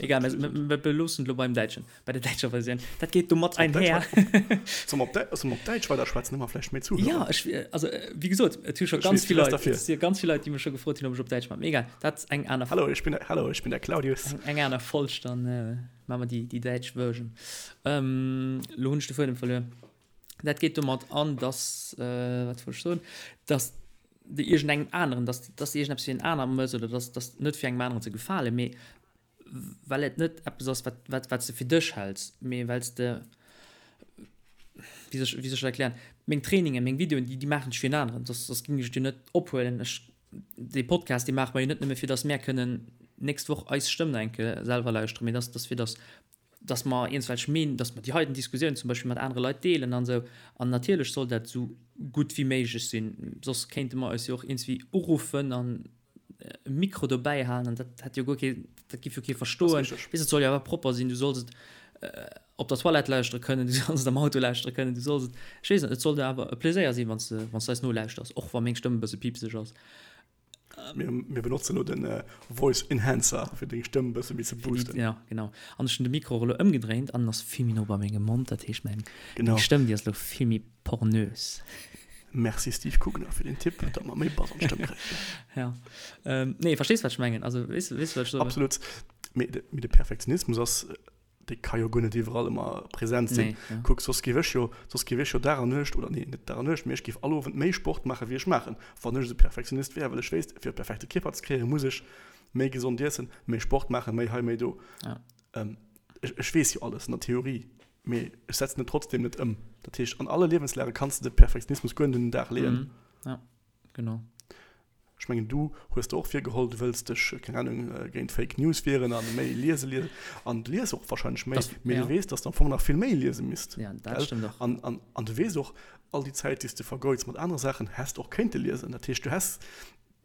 Egal, mir beloossen et elo beim Däitschen, bei der däitscher Versioun. Dat geet domat einher. Solle mer op Däitsch weiderschwätzen, hu mer vläicht méi Zuhörer? Ja, ech, also wéi gesot, et hu scho ganz vill Leit, et si ganz vill Leit, déi mech scho gefrot hunn, ob ech op Däitsch maachen. Mee egal, dat ass eng aner. Hallo, ich bin, hallo, ich bin der Claudius. Eng aner Folg, dann maache mer déi, déi däitsch Version. Elo hunn ech de Fuedem verluer. Dat geet domat an, dass, wat wollt ech soen, dass de iergendengem aneren, dass, dass de iergendeppes fir en aner mëss oder dass, dass net fir engem aneren ze gefalen, mee well et net eppes ass, wat, wat, wat s de fir dech häls, mee well s de, wéi soll ech, wéi soll ech dat erklären, meng Trainingen, meng Videoen, déi, déi maachen ech fir en aneren, soss, soss géing ech et jo net ophuelen. Ech, dee Podcast, dee maache mer jo net nëmme fir dass mär kënnen d'nächst Woch eis Stëmm nach eng Kéier selwer lauschteren, mee dass, dass fir dass dass mer iergendwelch Meen, dass mer déi heiten Diskussioun zum Beispill mat anere Leit deelen an esou. An natierlech soll dat esou gutt wéi méiglech sinn, soss kéinte mer eis jo och iergendwéi uruffen an e Mikro dobäi halen an dat hätt jo guer kee, dat giff jo kee verstoen. Weess, et soll jo awer propper sinn, du solls et op der Toilette lauschtere kënnen, du solls et am Auto lauschtere kënnen, du solls et, ech weess net, et soll der awer e Pleséier sinn, wann s de, wann s de eis nolauschters, och wa meng Stëmm e bësse piipseg ass. Mir, mir benotzen elo den Voice Enhancer, fir deng Stëmm e bësse méi ze boosten. Ja, genau. An ech hunn de Mikro och elo ëmgedréint an en ass vill méi no bei mengem Mond. Dat heescht, meng, Genau. meng Stëmm, déi ass elo vill méi pornös. Merci Steve Kugner fir den Tipp, datt mer méi Bass an d'Stëmm kréien. Ja. Ähm, nee, verstees, wat ech mengen? Also, weess, weess du, wat ech soe wëll? Absolut. Mee de, mee de Perfektionismus ass Dee ka jo guer net iwwerall ëmmer present sinn. Nee, ja. Kuck, soss géif ech jo, soss géif ech jo Dag an Nuecht, oder nee, net Dag an Nuecht, mee ech géif all Owend méi Sport maachen, wéi ech maachen, wann ech esou Perfektionist wär, well ech wéisst, fir e perfekte Kierper ze kréien, muss ech méi gesond iessen, méi Sport maachen, méi hei, méi do. Ja. Ähm, ech, ech weess jo alles an der Theorie, mee ech setzen et trotzdem net ëm. Dat heescht, an alle Liewenslage kanns de de Perfektionismus guer net un den Dag leeën. Mhm. Ja, genau. Ech mengen, du hues der och virgeholl, du wëlls dech, keng Ahnung, géint Fake News wieren an méi liese liesen. An du lies och wahrscheinlech méi, mee du weess, dass de am Fong nach vill méi liese misst. Ja, dat stëmmt och. An, an, an du weess och, all déi Zäit, déi s de vergeuds mat anere Saachen, häss de och kéinte liesen. Dat heescht, du häss,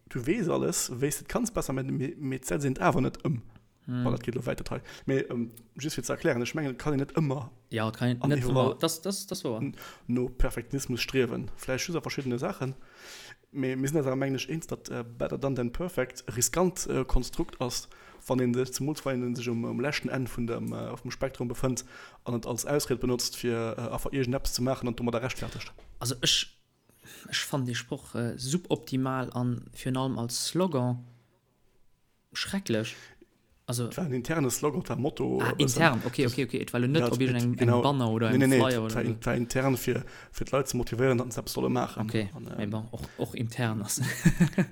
du weess alles, wéi s de et kanns besser maachen, mee, mee et setzt een et awer net ëm. Bon, dat geet elo wäit, dat hei. Mee just fir ze erklären, ech mengen, et kann een net ëmmer Ja, et kann een net ëmmer, dat, dat, dat ass wouer. no Perfektionismus striewen. Vläicht just a verschiddene Saachen. Mee mir sinn eis awer, mengen ech, eens, datt better done than perfect e riskant Konstrukt ass, wann ee sech, zemools wann ee sech um leschten Enn vun dem, vum Spektrum befënnt an et als Ausried benotzt, fir einfach iergendeppes ze maachen an domadder rechtfertegt. Also ech, ech fannen dee Sproch suboptimal an virun allem als Slogan. Schrecklech. Also. Et war en interne Slogan, et war e Motto. Ah, intern, okay, okay, okay. Et war elo net op iergendengem engem Banner oder engem Flyer oder esou. Nee, nee, et war intern, fir, fir d'Leit ze motivéieren, datt se eppes solle maachen. Okay, mee bon, och, och intern ass.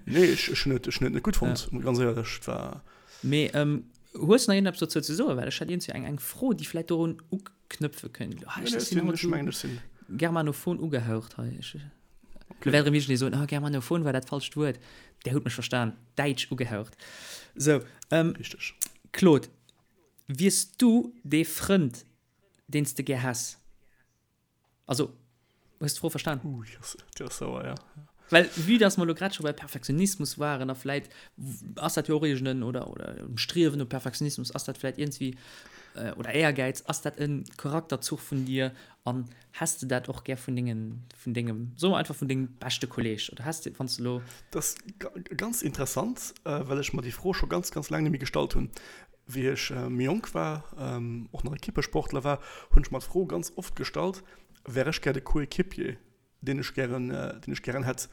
Nee, ech, ech hunn et, ech hunn et net gutt fonnt, ganz éierlech. Et war. Mee hues de nach iergendeppes dozou ze soen? Well ech hätt iergendwéi eng, eng Fro, déi vläicht dorun uknëpfe kënnt. Ah, ech sinn haut esou germanophon ugehaucht hei. Ech. Lo wäert erëm iergendee soen, oh, germanophon war dat falscht Wuert. Där hutt mech verstan. Däitsch ugehaucht. Sou, ähm, Richteg. Claude, wiers du dee Frënd, deen s de gär häss? Also, hues d'Fro verstan? Uh, déi ass, déi ass sauer, ja. Well vue dass mer elo grad scho bei Perfektionismus waren a vläit ass dat jo och iergend en, oder, oder um Striewen no Perfektionismus, ass dat vläit iergendwéi, oder Éiergäiz, ass dat e Charakterzuch vun dir an häss de dat och gär vun dengen, vun dengem, soe mer einfach vun dengem beschte Kolleeg oder häss de, wann s de elo. Dat ass ganz interessant, well ech mer déi Fro scho ganz, ganz laang net méi gestallt hunn. Wéi ech méi jonk war, och nach Ekippesportler war, hunn ech mer d'Fro ganz oft gestallt, Wär ech gär de Coéquipier, deen ech gären, deen ech gären hätt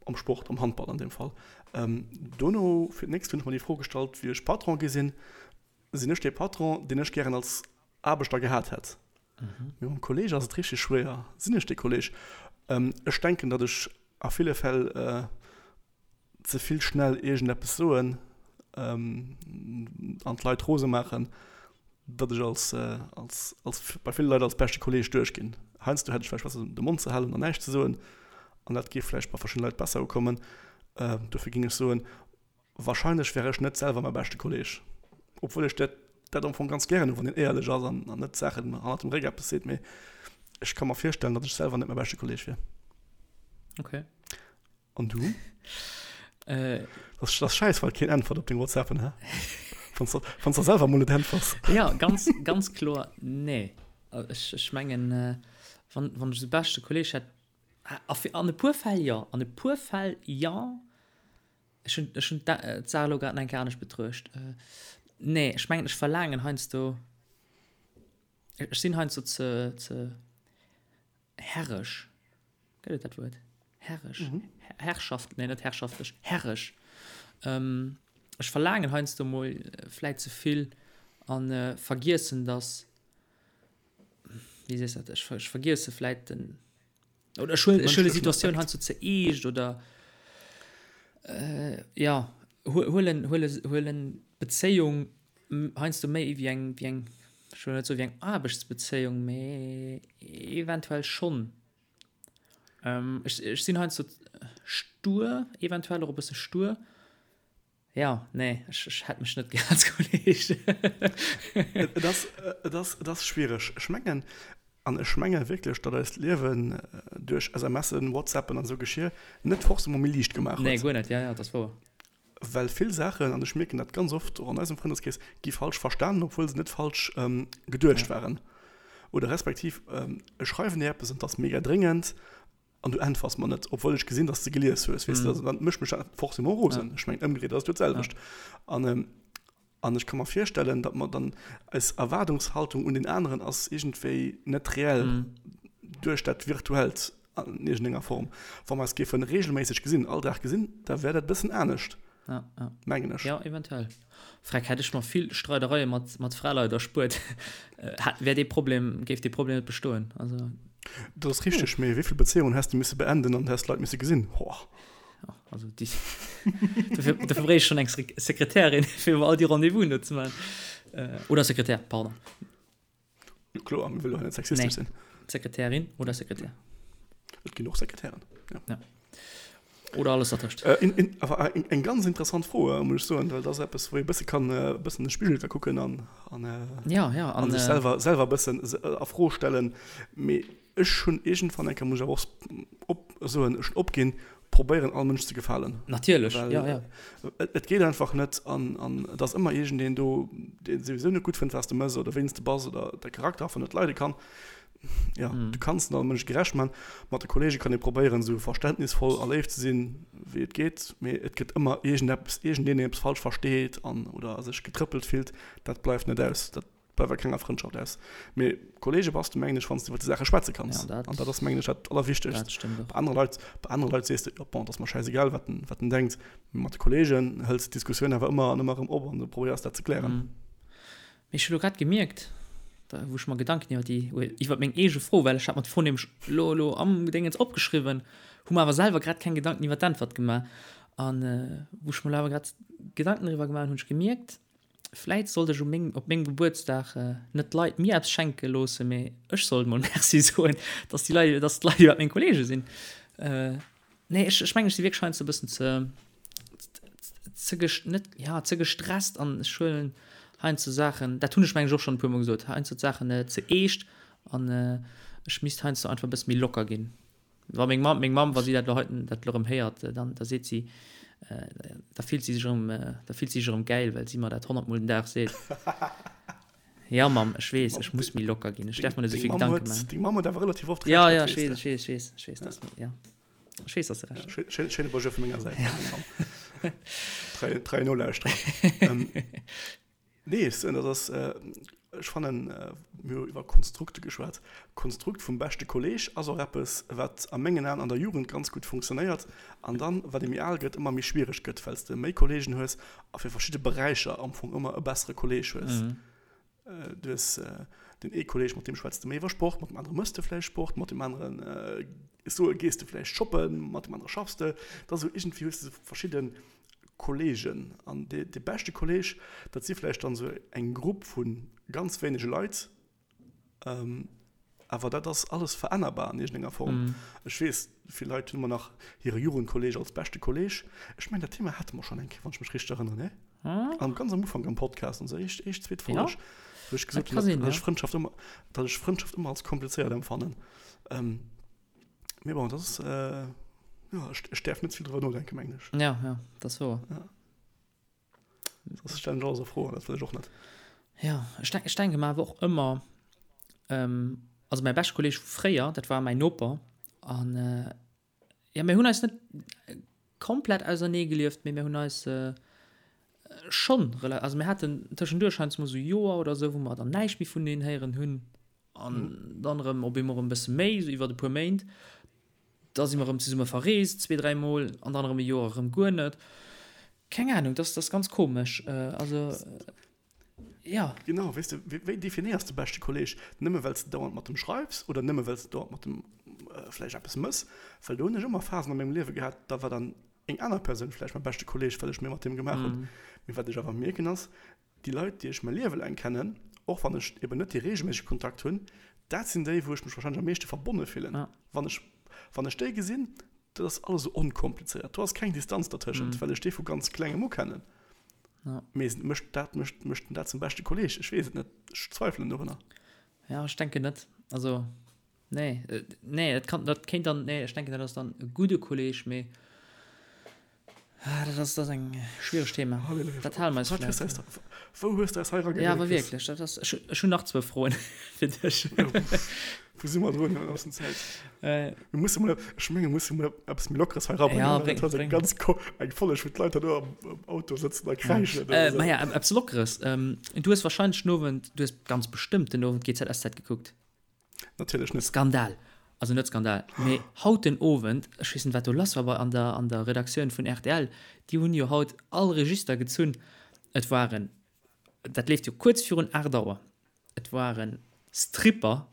am Sport, am Handball an deem Fall. Dono, fir d'nächst hunn ech mer déi Fro gestallt, wéi ech Patron gi sinn, Sinn ech dee Patron, deen ech gären als Aarbechter gehat hätt? Mee mam Kolleeg ass et richteg schwéier. Sinn ech dee Kolleeg? Ech denken, datt ech a ville Fäll ze vill schnell iergendeppes soen an d'Leit rose maachen, datt ech als, als, als bei ville Leit als beschte Kolleeg duerchginn. Heiansdo hätt ech vläicht besser de Mond ze halen an näischt ze soen an dat géif vläicht bei verschiddene Leit besser ukommen. Dofir géing ech soen, Wahrscheinlech wär ech net selwer mäi beschte Kolleg, obwuel ech dat dat am Fong ganz gären hunn, wann een éierlech ass an an net Saachen hannert dem Réck eppes seet, mee ech ka mer virstellen, datt ech selwer net mäi beschte Kolleg wier. Okay. An du? Äh. Dat ass schäiss, well keen äntwert op deng WhatsAppen, hä? Wann s wann s der selwer mol net äntwers. Ja, ganz, ganz kloer nee. Ech, ech mengen, wann, wann ech esou beschte Kolleg hätt, a fir, an e puer Fäll jo, an e puer Fäll jo. Ech hunn, ech hunn d'Saach elo grad nach eng Kéier anescht betruecht. Nee, ech mengen, ech verlaangen heiansdo, ech sinn heiansdo ze, ze herresch. Gëtt et dat Wuert? Herresch? Herrschaft, nee, net herrschaftlech, herresch. Ech verlaangen heiansdo mol vläit ze vill a vergiessen, dass, wéi sees dat, ech vergiesse vläit den, Oder ech huelen, ech huelen Situatioun heiansdo ze eescht oder äh, ja, huelen, huelen, huelen d'Bezéiung heiansdo méi wéi eng, wéi eng, ech wëll net soe wéi eng Aarbechtsbezéiung, mee eventuell schonn. Ähm, ech, ech sinn heiansdo stur, eventuell och e bësse stur. Ja, nee, ech, ech hätt mech net gär als Kolleg. Et ass, et ass, et ass schwiereg. Ech mengen, an ech menge wierklech, datt eist Liewen duerch SMSen, WhatsAppen an esou Geschir net forcément méi liicht gemaach huet. Nee, guer net, ja, ja, dat ass wouer. Well vill Saachen, an ech mierken dat ganz oft och an eisem Frëndeskrees, gi falsch verstanen, obwuel se net falsch geduecht waren. Oder respektiv, ech schreiwen dir eppes an et ass mega dréngend, An du äntwers mer net, obwuel ech gesinn, dass de gelies hues, weess de, also dann mécht mech dat forcément rosen. Ech mengen, ëmgedréit ass et jo d'selwecht. An, an ech ka mer virstellen, datt mer dann, eis Erwaardungshaltung un deen aneren ass iergendwéi net reell duerch dat Virtuellt an iergendenger Form. Wa mer eis géife reegelméisseg gesinn, all Dag gesinn, da wär dat e bëssen anescht. Ja, ja. Mengen ech. Ja, eventuell. Freck, hätt ech mer vill Streidereie mat, mat Fraleit erspuert, hätt, wär dee Problem, géif dee Problem net bestoen. Also. Dat ass richteg, mee wéi vill Bezéiungen häss de misse beenden an häss d'Leit misse gesinn? Hoah. Ja, also déi, dofir, dofir bréich ech schonn eng Sekretärin, fir mer all déi Rendez-vousen do ze maachen. Oder Sekretär, pardon. Jo kloer, mir wëlle jo hei net sexistesch sinn. Sekretärin oder Sekretär. Et ginn och Sekretären, ja. Ja. Oder alles dertëscht. Äh, in, in, awer eng, eng ganz interessant Fro, äh, muss ech soen, well dat ass eppes, wou ee bësse kann e bëssen an de Spigel ka kucken an, an, äh, ja, ja, an, an sech selwer, selwer bëssen a Fro stellen. Mee Ech hunn iergendwann eng Kéier, muss ech awer och op soen, ech hunn opginn, probéieren all Mënsch ze gefalen. Natierlech, jo, jo. Et geet einfach net an an et ass ëmmer iergendeen do, dee souwisou net gutt fënnt, wat s de mëss oder wéi s de bass oder däi Charakter einfach net leide kann. Jo, du kanns net all Mënsch gerecht man. Mat de Kolleege kann ee probéieren, esou verständnisvoll a léif ze sinn, wéi et geet, mee et gëtt ëmmer iergendeppes, iergendeen, deen eppes falsch versteet an oder sech getrëppelt fillt. Dat bleift net aus. Dat bleift a kenger Frëndschaft aus. Mee Kollege bass du, mengen ech, wann s du iwwer déi Saache schwätze kanns. Ja, dat, an dat ass, mengen ech, dat Allerwichtegst. Dat stëmmt och. Bei anere Leit, bei anere Leit sees de, jo, bon, dat ass mer schäisegal, wat en, wat en denkt. Mee mat de Kolleegen hëls de d'Diskussioun awer ëmmer an ëmmer erëm op an du probéiers dat ze klären. Mm. Mee ech hu lo grad gemierkt, da wou ech mer Gedanken iwwer déi, iwwer meng eege Fro, well ech hat mer d'Fro nämlech lo, lo am Gedéngens opgeschriwwen, hu mer awer selwer grad keng Gedanken iwwer d'Äntwert gemaach. An wou ech mer lo awer grad Gedanken driwwer gemaach hunn, hunn ech gemierkt, Vläit sollt ech u meng, op mengem Gebuertsdag net d'Leit mir eppes schenke loossen, mee ech sollt mol Merci soen, dass déi Leit, dass d'Leit iwwerhaapt meng Kollege sinn. Nee, ech, ech mengen, ech si wierklech heiansdo e bëssen ze, ze ges, net, ja, ze gestresst an ech huelen heiansdo Saachen, dat hunn ech mengen ech och schonn e puermol gesot, heiansdo d'Saachen ze eescht an ech misst heiansdo einfach e bësse méi locker ginn. Wa meng Mamm, meng Mamm, wa si dat elo heiten, dat elo erëm héiert, dann, da seet si, da fillt si sech erëm, da fillt si sech erëm gäil, well si mer dat honnertmol den Dag seet. Ja, Mamm, ech weess, ech muss méi locker ginn, ech däerf mer net esou vill Gedanke maachen. Deng Mamm huet awer relativ oft Recht, dat weess de. Ja, ja, ech weess, ech weess, ech weess, ech weess, dass, ja. Ech weess, dass de Recht hues. Schéine, schéine Bonjour vu menger Säit un deng Mamm. Trei, trei Nolauschterer. Nee, ech soen, dat ass, ech fannen, mir hu iwwer Konstrukte geschwat, d'Konstrukt vum beschte Kolleeg ass och eppes, wat a mengen Aen an der Jugend ganz gutt funktionéiert an dann, wat ee méi al gëtt, ëmmer méi schwiereg gëtt, well s de méi Kolleegen hues a fir verschidde Beräicher am Fong ëmmer e bessere Kolleeg hues. Du hues deen ee Kolleeg, mat deem schwätz de méi iwwer Sport, mat deem anere mëss de vläicht Sport, mat deem aneren, ech soe, gees de vläicht shoppen, mat deem anere schaffs de. Dat ass esou, iergendwéi hues de esou verschidde Kolleegen. An dee beschte Kolleeg, dat si vläicht dann esou eng Grupp vu ganz wéinege Leit. Awer dat ass alles verännerbar an iergendenger Form. Ech weess, vill Leit hunn ëmmer nach hire Jugendkolleeg als beschte Kolleeg. Ech mengen, dat Thema hate mer schonn eng Kéier, wann ech mech richteg erënneren, nee? Am ganz am Ufank am Podcast, onser éischt, éischt, zweet Folg, wou ech gesot hunn, datt ech Frëndschaft ëmmer, datt ech Frëndschaft ëmmer als komplizéiert empfannen. Mee bon, dat ass, jo, ech, ech däerf net ze vill driwwer nodenken, mengen ech. Ja, ja, dat ass wouer. Ja. Soss stellen ech alles a Fro an dat wëll ech och net. Ja, ech denk, ech denke mer awer och ëmmer, also mäi beschte Kolleeg vu fréier, dat war mäin Noper an jo, mir hunn eis net komplett ausernee gelieft, mee mir hunn eis schonn rela, also mir haten tëschenduerch heiansdo mol esou Joer oder esou, wou mer dann näischt méi vuneneen héieren hunn an dann erëm op eemol erëm e bësse méi, esou iwwert e puer Méint. Da si mer erëm zesumme verreest, zwee, dräi Mol, an dann erëm e Joer erëm guer net. Keng Ahnung, dat ass ganz komesch. Also, ja. Genau, weess de, wéi definéiers de beschte Kolleeg? Nëmme well s de dauernd mat em schreifs oder nëmme well s de dauernd mat em vläicht eppes mëss? Well do hunn ech ëmmer Phasen a mengem Liewe gehat, da war dann eng aner Persoun vläicht mäi beschte Kolleeg, well ech méi mat deem gemaach hunn. Mee wat ech awer mierken ass, Déi Leit, déi ech mäi Liewe laang kennen, och wann ech eben net dee reegelméissege Kontakt hunn, dat sinn déi, wou ech mech warscheinlech am meeschte verbonne fillen. Wann ech, wann ech déi gesinn, dat ass alles esou onkomplizéiert, do ass keng Distanz dertëschent, well ech déi vu ganz Klengem u kennen. Mee mécht dat, mécht, mécht en dat zum beschte Kolleeg? Ech weess et net, ech zweifelen dorunner. Jo, ech denken net. Also, nee, nee, dat kann, dat kéint dann, nee, ech denken, dat ass dann e gudde Kolleeg, mee Ah, dat ass, dat ass eng schwiereg Thema. Halleluja. Dat hale mer eis Wat hues du eis da, wou hues du eis hei erageréckelt? Ja, awer wierklech, dat ass, ech, ech hunn nach zwou Froen fir dech. Wou si mer drun an der Zäit? Äh. Mir musse mol, ech menge musse mol eppes méi Lockeres hei erabréngen. Ja, bréng, dat ass eng ganz ko, eng Folleg, wou d'Leit dann do am, am Auto sëtzen a kräischen. Ja. Äh, ma ja, eppes Lockeres. Ähm, du hues wahrscheinlech den Owend, du hues ganz bestëmmt den Owend GZSZ gekuckt. Natierlech net. Skandal! Also net Skandal, mee haut den Owend, ech weess net wat do lass war bei an der an der Redaktioun vun rtl, déi hunn jo haut all Register gezunn. Et waren, dat leeft jo kuerz virun 8 Auer, et waren Stripper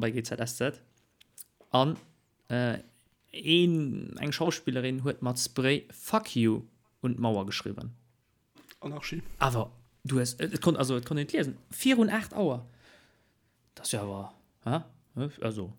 bei GZSZ an een eng Schauspillerin huet mat Spray Fuck you un d'Mauer geschriwwen. Anarchie. Awer du hues, et konnt, also et konnt een et liesen, virun 8 Auer. Dat ass jo awer, hä? Also.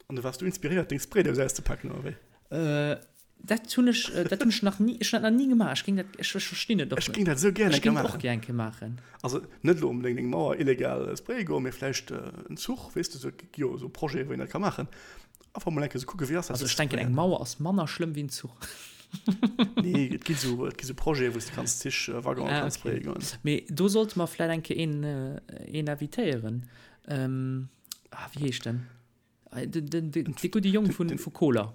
An du waars du inspiréiert, deng Spraydous auszepaken, oder wéi? Äh, dat hunn ech, dat hunn ech nach ni, ech hunn dat nach ni gemaach. Ech géing dat, ech, ech verstinn et och net. Ech géing dat esou gär eng Kéier maachen. Ech géing et och gär eng Kéier maachen. Also net elo onbedéngt eng Mauer illegal spraye goen, mee vläicht en Zuch, weess de, esou, et gi jo esou Projete wou een dat ka maachen. Einfach mol eng Kéier esou kucken, wéi ass dat? Also ech denken, eng Mauer ass manner schlëmm wéi en Zuch. Nee, et gi sou, et gi sou Projete, wou s de kanns Zich, Waggonen ah, kanns okay. goen. Mee do sollte mer vläit eng Kéier een, een invitéieren. Ähm, ah, wéi heescht den? Den, den, den, dee gudde Jong vun, vu Koler.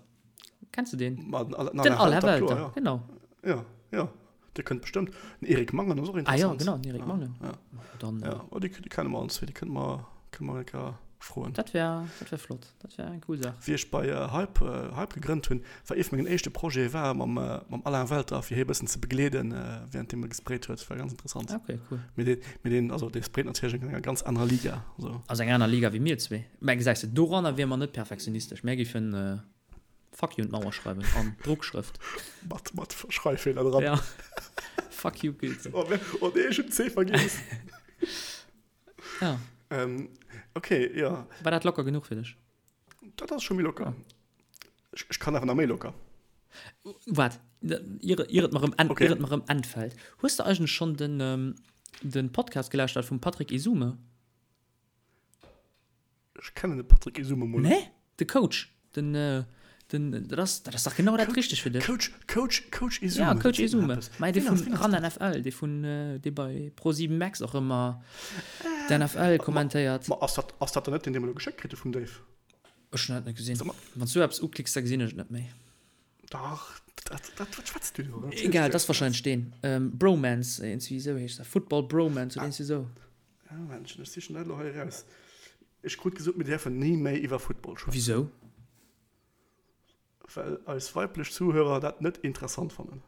Kenns du deen? Ma, den Alain, den Alain Welter, kloer, ja. genau. Ja, ja. Dee kënnt bestëmmt. Den Eric Mangen ass och interessant. Ah ja, genau, den Eric Mangen. Ja, Dann, ja. Oh, déi, déi kenne mer allen zwee, déi kënne mer, kënne mer eng Kéier froen. Dat wär, dat wär flott, dat wär eng cool Saach. Wéi ech bei Hype, Hype gegrënnt hunn, war ee vu mengen éischte Projete war mam, mam Alain Welter, fir hie e bëssen ze begleeden, während deem e gesprayt huet. War ganz interessant. Ah, okay, cool. Mee deen, mee deen, also dee sprayt natierlech an enger ganz anerer Liga, also. Ass eng aner Liga wéi mir zwee. Mä gesäis de, doranner wiere mer net perfektionistesch. Mär géifen Fuck you un d'Mauer schreiwen an Drockschrëft. Mat, mat Schreiffeeler dran. Ja. Fuck you, Goethe. Oh, oh nee, ech hunn C vergiess. Ja. Ähm, okay, ja. War dat locker genuch fir dech? Dat ass scho méi locker. Ech, ech kann awer nach méi locker. Waart, ier, ier et mer erëm okay. ier et mer erëm entfällt. Hues de eigentlech schonn den, ähm, den Podcast gelauschtert vum Patrick Esume? Ech kennen de Patrick Esume mol net. Nee? De Coach. Den, den, dat ass, dat ass dach genau dat Richtegt fir dech. Coach, Coach, Coach Esume. Ja, Coach Esume. Mä dee vun ran NFL, dee vun, dee bei Pro7 Max och ëmmer d'NFL kommentéiert. Ma ass dat, ass dat dann net deen, dee mer elo geschéckt kritt hu vum Dave? Ech hunn dat net gesinn. Wann s du eppes uklicks, da gesinn ech et net méi. Dach, dat, dat, wat schwätz du do? Egal, dat ass wahrscheinlech deen. Bromance, iergendwéi esou heescht dat. Football Bromance oder iergendwéi esou. Ja, Männchen, ech sichen dat elo hei eraus. Ech krut gesot, mir däerfen ni méi iwwer Football schwätzen. Wisou? Well eis weiblech Zuhörer dat net interessant fannen.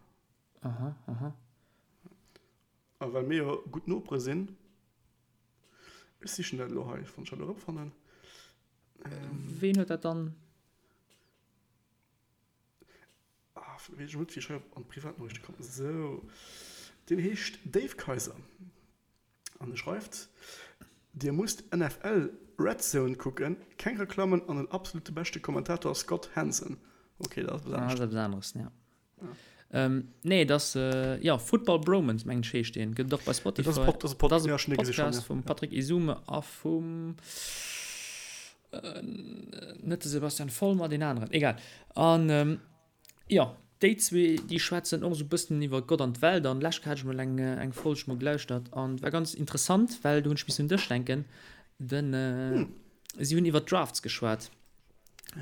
Aha, aha. A well mir jo gutt Nopere sinn. Ech sichen dat elo hei, wann ech dat elo erëmfannen. Ween huet dat dann? Ah, weess ech net, wéi ech hei an d'Privatnoriichte kommen. Sou, deen heescht Dave Kaiser. An e schreift, Dir musst NFL Red Zone kucken, keng Reklammen an den absolute beschte Kommentator Scott Hanson. Ok, dat ass eppes anescht. Ah, dat ass eppes aneres, ja. Nee, et ass, jo, Football Bromance, mengen ech heescht deen. Gëtt et och bei Spotify. Dat ass e Pod, ja, ech hunn dee gesi schonn, ja. Podcast vum Patrick Esume a vum, net de Sebastian Vollmer, deen aneren, egal. An, Jo, déi zwee déi schwätzen och esou bëssen iwwer Gott an d'Welt an lescht hat ech mol eng eng Folg mol gelauschtert an war ganz interessant, well do hunn ech missen un dech denken, den si hunn iwwer d'Drafts geschwat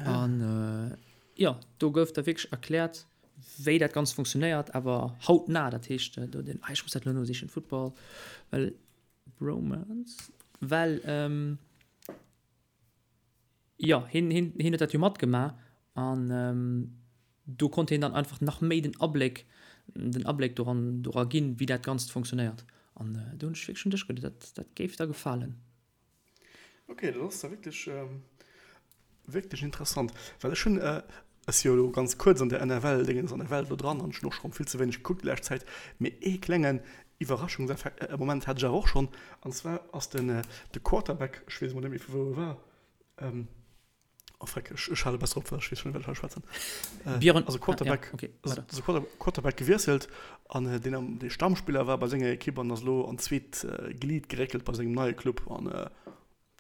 an jo do gouf da wierklech erkläert wéi dat Ganzt funktionéiert, awer hautnah, dat heescht do den, ah ech muss dat elo nosichen, Football well Bromance well. Jo, hien, hien, hien huet dat jo matgemaach an do konnt hien dann einfach nach méi den Abléck, den Abléck doran, dora ginn, wéi dat Ganzt funktionéiert. An do hunn ech wierklech un dech geduet, dat, dat géif der gefalen. Ok, dat ass da wierklech, wierklech interessant, well ech hunn, ech si jo elo ganz kuerz an der NFL-Dingens, an der Welt elo dran an ech hunn och scho vill ze wéineg gekuckt déi lescht Zäit, mee ee klengen Iwwerraschungseffekt, Moment hat ech awer och schonn, an zwar ass den, de Quarterback, ech weess emol net méi vu wou e war, Ähm, oh freck, ech, ech hale besser op, well ech weess schon net, wat ech hei schwätzen. Äh, Björn, also Quarterback, ah, ja, okay, also, also Quarter, Quarterback gewiesselt an äh, deen am, dee Stammspiller war bei senger Ekipp an ass lo an d'zweet äh, Glied geréckelt bei sengem neie Club an äh,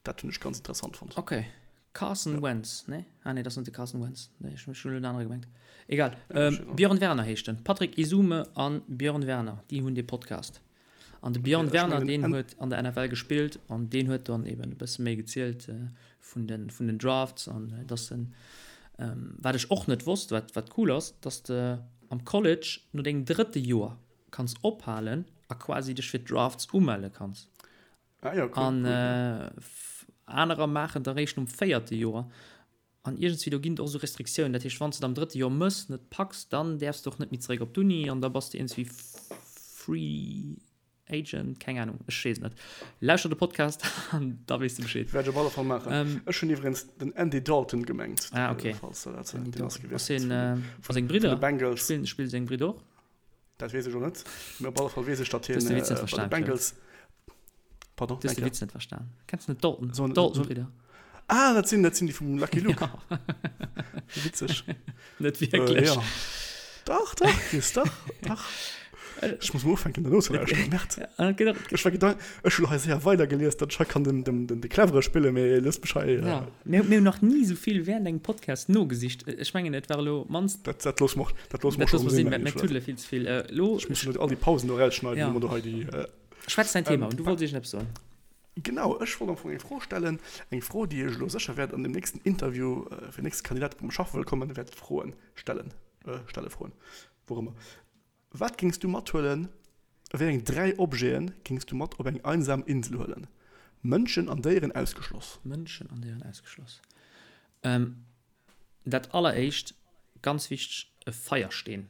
dat hunn ech ganz interessant fonnt. Okay. Carson ja. Wentz, ne? Ah nee, dat ass net de Carson Wentz. Nee, ech hunn en anere gemengt. Egal. Ja, ähm, Björn Werner heescht en. Patrick Esume an Björn Werner, déi hunn dee Podcast. An de Björn Werner, deen huet an der NFL gespillt an deen huet dann eben e bësse méi gezielt vun de vun den Drafts an dass en, wat ech och net wosst, wat wat cool ass, dass de am College no dengem drëtte Joer kanns ophalen a quasi dech fir d'Drafts umelle kanns. Ah jo, cool, An anerer maachen et eréischt nom véierte Joer. An iergendswéi do ginn et och esou Restriktiounen, dat heescht wann s de et am drëtte Joer mëss, net packs, dann däerfs de och net méi zeréck op d'Uni an da bass de iergendswéi Free Agent, keng Anung, ech weess et net. Lauschter de Podcast an da weess de Bescheed. Wäert ech op alle Fall maachen. Ech hunn iwwregens den Andy Dalton gemengt, Ah ok, falls der dat, Andy deen ass Dalton. gewiesselt Ass hien, vun a seng vun de Bridder? Bengals. Spillen, spille seng Bridder och? Dat weess ech och net, mee op alle Fall weess ech, datt Du hues hien de Witz net bei de verstan, Claude. Bengals, Pardon, Du hues de eng Kéier? Witz net verstan. Kenns du net d'Dalton, So, so, d'Dalton-Bridder? Ah, dat sinn, dat sinn déi vum Lucky Luke. Ja. Witzeg. Net Äh, wierklech. ja. Dach, dach, Chris, dach, dach. Ech muss mol ufänken, dat nozelauschteren. Merde. Ja, genau. Ech war gedank, ech hunn hei séier weidergelies, datt ech hei kann den, den, den, de Clevere spillen, mee looss mech hei. Ja. Mir, mir hunn nach ni esou vill während engem Podcast nogesicht. Ech mengen, et war elo mannst. Dat, dat loosse mer, dat loosse mer Dat scho loosse mer sinn, sinn, mengen mir ech, oder? tuddele vill ze vill. Äh, elo. Ech muss elo all déi Pausen do erausschneiden, Ja. wou mer do hei déi. Äh, Schwätz däin Thema ähm, un, du wollts iergendeppes soen. Genau, ech wollt am Fong eng Fro stellen, eng Fro, déi ech elo sécher wäert an dem nächsten Interview fir den nächste Kandidat, wou mer schaffe wëll kommen, wäert froen, stellen, stelle froen, wou och ëmmer. Wat géings du mathuelen, wéi eng 3 Objete géings du mat op eng einsam Insel huelen? Mënschen an Déieren ausgeschloss. Mënschen an Déieren ausgeschloss. Dat alleréischt, ganz wichteg, e Feiersteen.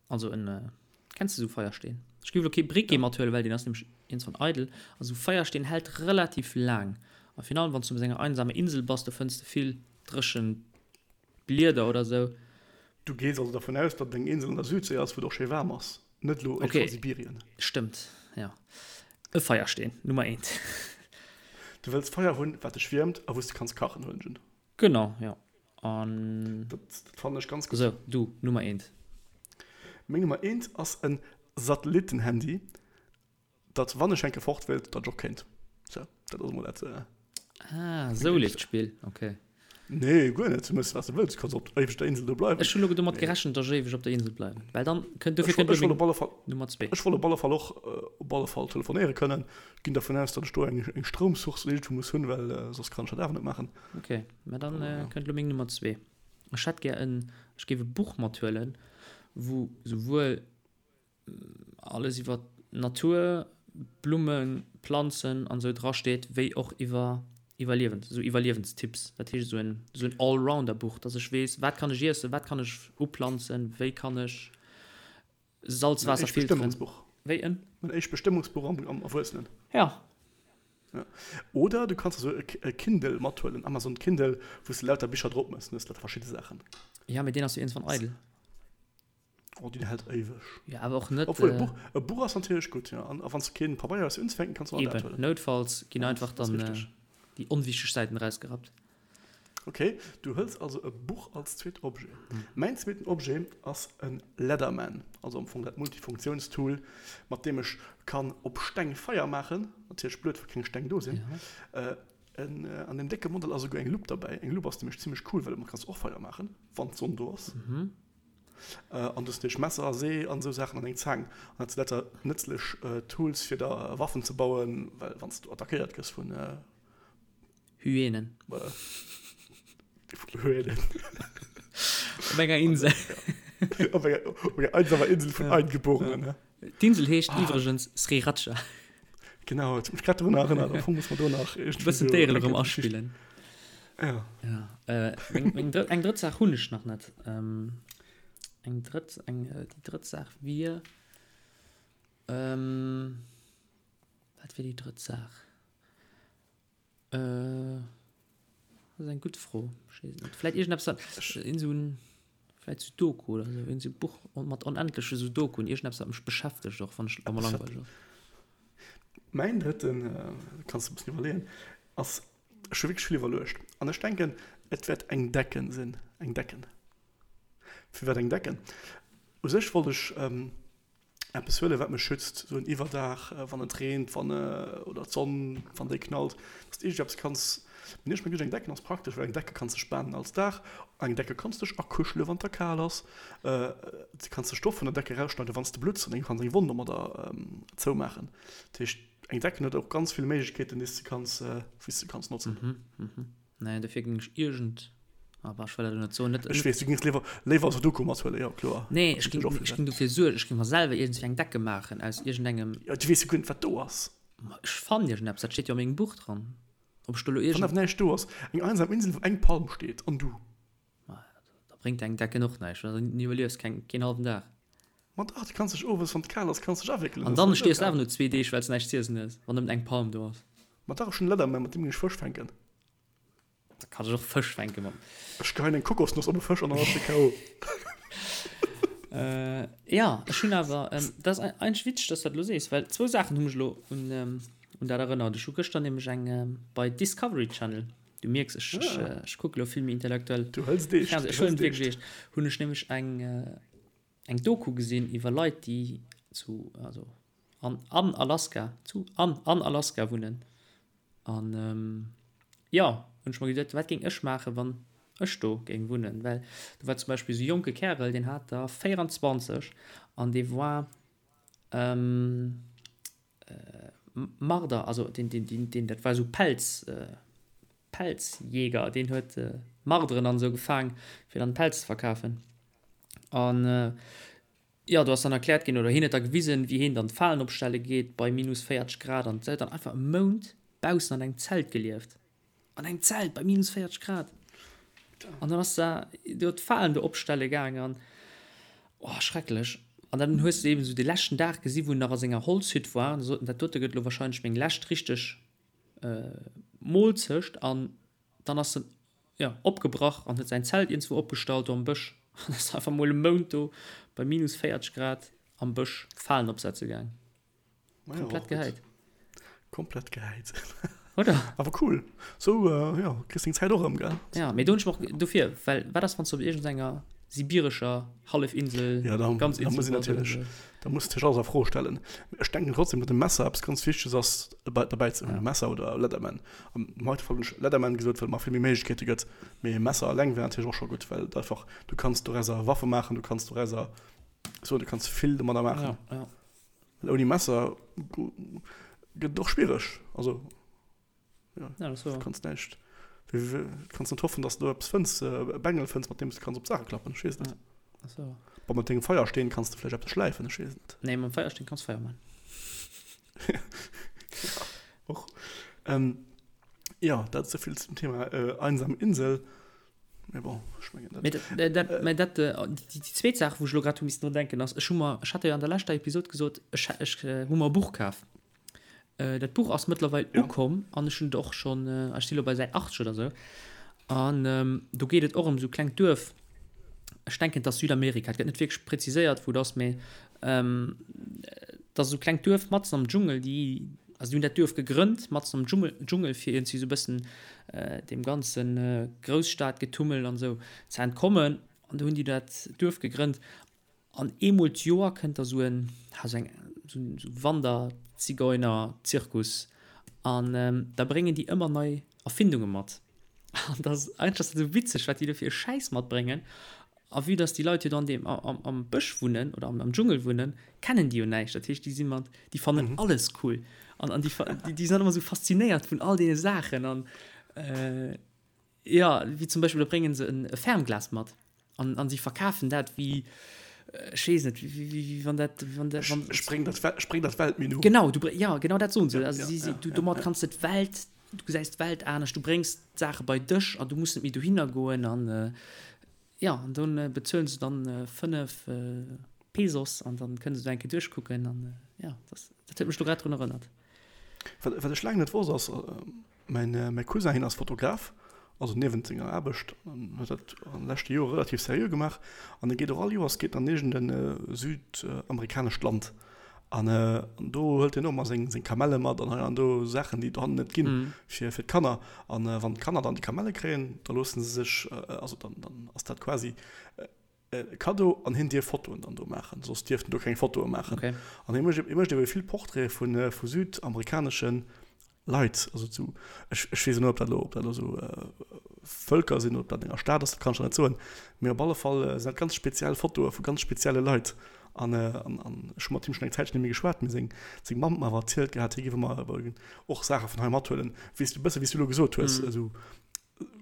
Also en, kenns de sou Feiersteen? Ech géif elo kee Briquet mathuelen, well deen ass nämlech iergendwann eidel. A sou Feiersteen hält relativ laang. A virun allem wann s du op enger einsamer Insel bass, do fënns de vill dréchen Blieder oder sou. Du gees also dervun aus, datt et eng Insel an der Südséi ass, wou et och schéi waarm ass, net elo Okay, a Sibirien. stëmmt, jo. E Feiersteen, Nummer eent. Du wëlls Feier hunn, wat dech wiermt a wou s de kanns kachen, huelen ech un. Genau, jo. An. Dat, dat fannen ech ganz gutt. Sou, du, Nummer eent. Meng Nummer eent ass en Satellittenhandy, datt wann ech enke fort wéilt, datt ech och kéint. Sou, dat ass emol dat. Ah, sou leeft d'Spill, okay. Nee, guer net. Du méchs, wat s de wëlls. Du kanns op éiweg der Insel do bleiwen. Ech hunn elo domat gerechent, datt ech éiweg op der Insel bleiwen. Well dann kënnt, dofir kënnt elo meng Nummer zwee. Ech wollt op alle Fall och op alle Fall telefonéiere kënnen. Ginn dervun aus, datt ech do eng eng Stroumsource iergendwou muss hunn, well soss kann ech dat awer net maachen. Ok, mä dann kënnt elo meng Nummer zwee. Ech hätt gär en, ech géif e Buch mathuelen, wou souwuel alles iwwer d'Natur, Blummen, Planzen an esou dra steet, wéi och iwwer Iwwerliewens, esou Iwwerliewenstipps. Dat heescht esou en, esou en Allrounder-Buch, dass ech weess, wat kann ech iessen, wat kann ech uplanzen, wéi kann ech Salzwaasser filteren. Wéi en? Mein éischt Bestëmmungsbuch am, am Erwuessenen. Ja. Ja. Oder du kanns esou e Kindle mathuelen, Amazon Kindle, wou s de lauter Bicher drop mëss, dann hues de lauter verschidde Saachen. Ja, mee deen ass jo iergendwann eidel. Oh, déi hält éiweg. Ja, awer och net. Obwuel, e Buch, e Buch ass natierlech gutt, jo. An a wann s de keen Pabeier hues fir unzefänken, kanns du och dat huelen. Eben, noutfalls ginn einfach dann déi onwichteg Säiten erausgerappt. Ok, du hëls also e Buch als zweet Objet. Mäin zweeten Objet ass e Leatherman, also am Fong dat Multifunktiounstool, mat deem ech kann op Steng Feier maachen. Natierlech blöd, wa keng Steng do sinn. An deem décke Modell ass esouguer eng Lupp derbäi. Eng Lupp ass nämlech zimmlech cool, well domat kanns du och Feier maachen, wann d'Sonn do ass. An du hues natierlech Messer, See an esou Saachen an eng Zaang. An dat si lauter nëtzlech Tools fir der Waffen ze bauen, well wann s du attackéiert gëss vun. Hyänen. Hyänen. Op enger Insel. Op enger, op enger einsamer Insel vun Eingeborenen. D'Insel heescht iwwregens Sriracha. Genau, et huet mech grad drun erënnert. Am Fong muss mer do nach e bëssen d'Déieren erëm aspillen. Ja. Ja. Äh, meng, meng drëtt, eng drëtt Saach hunn ech nach net. Ähm, eng drëtt, eng, äh, déi drëtt Saach wier, ähm, wat wier déi drëtt Saach? Äh, dat ass eng gutt Fro. Ech weess et net. Vläit iergendeppes, wat, iergend esou en, vläit Sudoku oder esou, iergend esou Buch mat onendleche Sudokuen, iergendeppes, wat mech beschäftegt och, wann ech, wa mer langweileg ass. Mäin drëtten, kanns de e bëssen iwwerleeën, ass, ech hu wierklech vill iwwerluecht an ech denken, et wäert eng Decken sinn, eng Decken. Firwat eng Decken? U sech wollt ech eppes huelen, wat mech schützt, esou en Iwwerdaach, wann et reent, wann oder d'Sonn, wann déi knallt, dass de iergendeppes kanns. Mee ech mengen, eng Decken ass praktesch, well eng Decke kanns de spanen als Daach, eng Decke kanns dech akuschele wann et der kal ass, du kanns de Stoff vun der Decke erausschneiden, wann s de blutts an eng kanns eng Wonn domadder zoumaachen. Dat heescht, eng Decken huet och ganz vill Méiglechkeeten, déi s de kanns, wéi s de kanns notzen. Nee, dofir géing ech iergend, ah bah, ech wëll dat elo net soen, net. Ech weess, du géings léiwer, léiwer Sudoku mathuelen, jo kloer. Nee, ech géing, ech géing dofir suergen, ech géing mer selwer iergendswéi eng Decke maachen aus iergendengem. Jo, du weess jo guer net, wat do ass. Ma ech fannen iergendeppes, dat steet jo a mengem Buch dran. Ob ech do elo iergend. Wann awer näischt do ass, eng einsam Insel, wou eng Palm steet an du. Ma da bréngt eng Decken och näischt, well dann iwwerliefs keng, keen hallwen Dag. Ma dach, du kanns dech owes, wann et kal ass, kanns dech awéckelen, An dann stierfs de awer no zwee Deeg, well s näischt z'iessen hues, wann nëmmen eng Palm do ass. Ma dach, ech hunn e Leatherman, mat deem ginn ech Fësch fänken. Da kann ech och Fësch fänken mat. Ech geheien eng Kokosnoss op e Fësch an dann ass de KO. Jo, ech hunn awer, dat ass eigentlech witzeg, dass du dat elo sees, well zwou Saachen hu mech elo un dat erënnert. Ech hu gëschter nämlech eng bei Discovery Channel, du mierks, ech, ech, ech kucke elo vill méi intellektuell Du hëls et eescht, Fernseh, ech huelen et wierklech eescht, hunn ech nämlech eng, eng Doku gesinn iwwer Leit, déi zu, also an, an Alaska, zu, an, an Alaska wunnen. An jo, hunn ech mer geduet, wat géing ech maachen, wann ech do géing wunnen? Well do war zum Beispill esou e jonke Kärel, deen hat der 24 an dee war Marder, also deen, deen, deen, deen, dat war esou Pelz, Pelzjäger, deen huet Marderen an esou gefaang, fir dann Pelz ze verkafen. An jo, do ass dann erkläert ginn, oder hien huet da gewisen, wéi hien dann d'Falen opstelle geet bei minus 40 Grad an huet dann einfach e Mount baussen an engem Zelt gelieft. An engem Zelt bei minus 40 Grad! An dann ass da do d'Falen do opstelle gaang an, oh, schrecklech. An dann hues de eben esou de leschten Dag gesi wou en nach a senger Holzhütt war an sot en, dat dote gëtt elo wahrscheinlech meng lescht richteg Moolzecht an dann ass en jo opgebrach an huet säin Zelt iergendswou opgestallt do am Bësch an ass einfach mol e Mount do bei minus 40 Grad am Bësch Falen opsetze gaang. Komplett gehäit. Komplett gehäit. Oder? Awer cool. Sou, jo, kriss deng Zäit och erëm, gell? Ja, mee do hunn ech mer och dofir, well wat ass wann s du op iergendenger. Sibirescher Hallefinsel, ja, da, ganz da muss ich natürlich, da muss ich alles a Fro stellen. Ech denken trotzdem, datt e Messer eppes ganz Wichteges ass derbäi ze hunn, ja. Messer oder Leatherman. Am heite Fall hunn ech Leatherman gesot, well et mer vill méi Méiglechkeete gëtt, mee e Messer alleng wär natierlech och scho gutt, well et einfach, du kanns dorauser Waffe maachen, du kanns dorauser so, du kanns vill domadder maachen. Ja, ja. Well ouni Messer gëtt et och schwiereg, also. Ja, ja, das war. Du kannst näischt. Du kannst net hoffen, dass du eppes fënns, e Bengel fënns, mat deem du kanns op d'Saache klappen. Ech weess net. Ja, das war. Bon, mat dengem Feiersteen kanns du vläicht eppes schläifen, ech weess net. Nee, mam Feiersteen kanns Feier man. ja, och. Ähm, ja, dat esouvill zum Thema äh, einsam Insel. Mee bon, ech mengen dat. Mee dat, dat, mee dat, äh, déi, déi zweet Saach, wou ech elo grad hu missen drun denken, ass, ech hu mer, ech hat jo an der leschter Episod gesot, ech, ech hu mer e Buch kaf. Dat Buch ass mëttlerweil ja. ukomm an ech hunn et och schonn, ech si lo bei Säit 80 oder sou. An ähm, do geet et och ëm sou klengt Duerf. Ech denken, et ass Südamerika. Et gëtt net wierklech präziséiert, wou et ass, mee ähm, et ass esou klengt Duerf matzen am Dschungel, déi, also déi hunn dat Duerf gegrënnt matzen am Dschungel, Dschungel fir iergendwéi sou e bëssen äh, deem ganzen äh, Grousstadgetummel an sou ze entkommen. An do hunn déi dat Duerf gegrënnt. An eemol d'Joer kënnt da sou en, ha sou eng, sou en Wanderzigeuner-Zirkus an da bréngen déi ëmmer nei Erfindunge mat. An da ass, eigentlech ass dat esou witzeg, wat déi do fir e Schäiss matbréngen. A vue dass déi Leit jo do an deem, am, am Bësch wunnen oder am, am Dschungel wunnen, kennen déi jo näischt. Dat heescht, déi si mat, déi fannen alles cool an, an déi, déi sinn dann ëmmer esou faszinéiert vun all deene Saachen an, Jo, wéi zum Beispill, da bréngen se e Fernglas mat an, an si verkafen dat wéi, ech weess net, wéi, wéi, wéi wann dat, wann dat, wann. Ech bréng dat, ech bréng dat Weltmenu. Genau, du, ja, genau dat soen se. Also si, si, du, domat kanns de d'Welt, du gesäis d'Welt anescht, du bréngs d'Saache bei dech an du muss net méi dohinner goen an, jo, an do bezuelen se dann 5 Pesos an dann kënne se do eng Kéier duerchkucken an, jo, dat, dat huet mech do grad drun erënnert. Wat, wat ech laang net wosst ass, Mäin mäi Cousin, hien ass Fotograf, also niewent senger Aarbecht, an huet dat an de leschte Jore relativ seriö gemaach. An e geet och all Joers geet en an iergend e südamerikanescht Land. An do hëlt hien och ëmmer seng seng Kamelle mat an hei an do Saachen, déi et dohannen net ginn, fir fir d'Kanner. An wann d'Kanner dann déi Kamelle kréien, da loosse se sech, also dann dann ass dat quasi e Kaddo an hien dierf Fotoen dann do maachen, soss dierft en do keng Fotoe maachen. Okay. An hie mécht, hie mécht ebe vill Portraite vu vu südamerikanesche Leit, also zu, ech, ech weess net, ob dat elo, ob dat elo esou Vëlker sinn oder ob dat an enger Stad ass, dat kann ech der net soen, mee op alle Fall sinn dat ganz speziell Fotoe vu ganz spezielle Leit. An, an, an ech hu mat him schonn eng Zäitchen net méi geschwat, mee seng, seng Mamm huet mer awer erzielt gehat, hie géif ëmmer och Saache vun hei mathuelen, wéi s du, e bësse wéi s du elo gesot hues, esou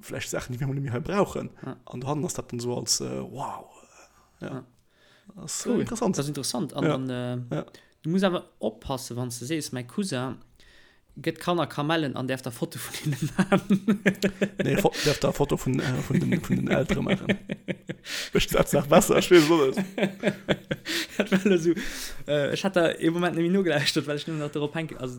vläicht Saachen, déi mir emol net méi hei brauchen. Ja. An dohannen ass dat dann esou als äh, wow. Ja. Ja. Das ist Cool. interessant. Dat ass interessant. An Ja. dann, äh, Ja. du muss awer oppassen, wann s de sees, mäi Cousin gëtt Kanner Kamellen an däerf da Foto vun hinne maachen. Nee, Fo däerf da Foto vun, äh, vun, den, vun den Eltere maachen. Ech dat nach besser, ech weess et och net. Dat war elo esou, äh, ech hat da ee Moment net méi nogelauschtert, well ech nëmmen nach dorop hänke, also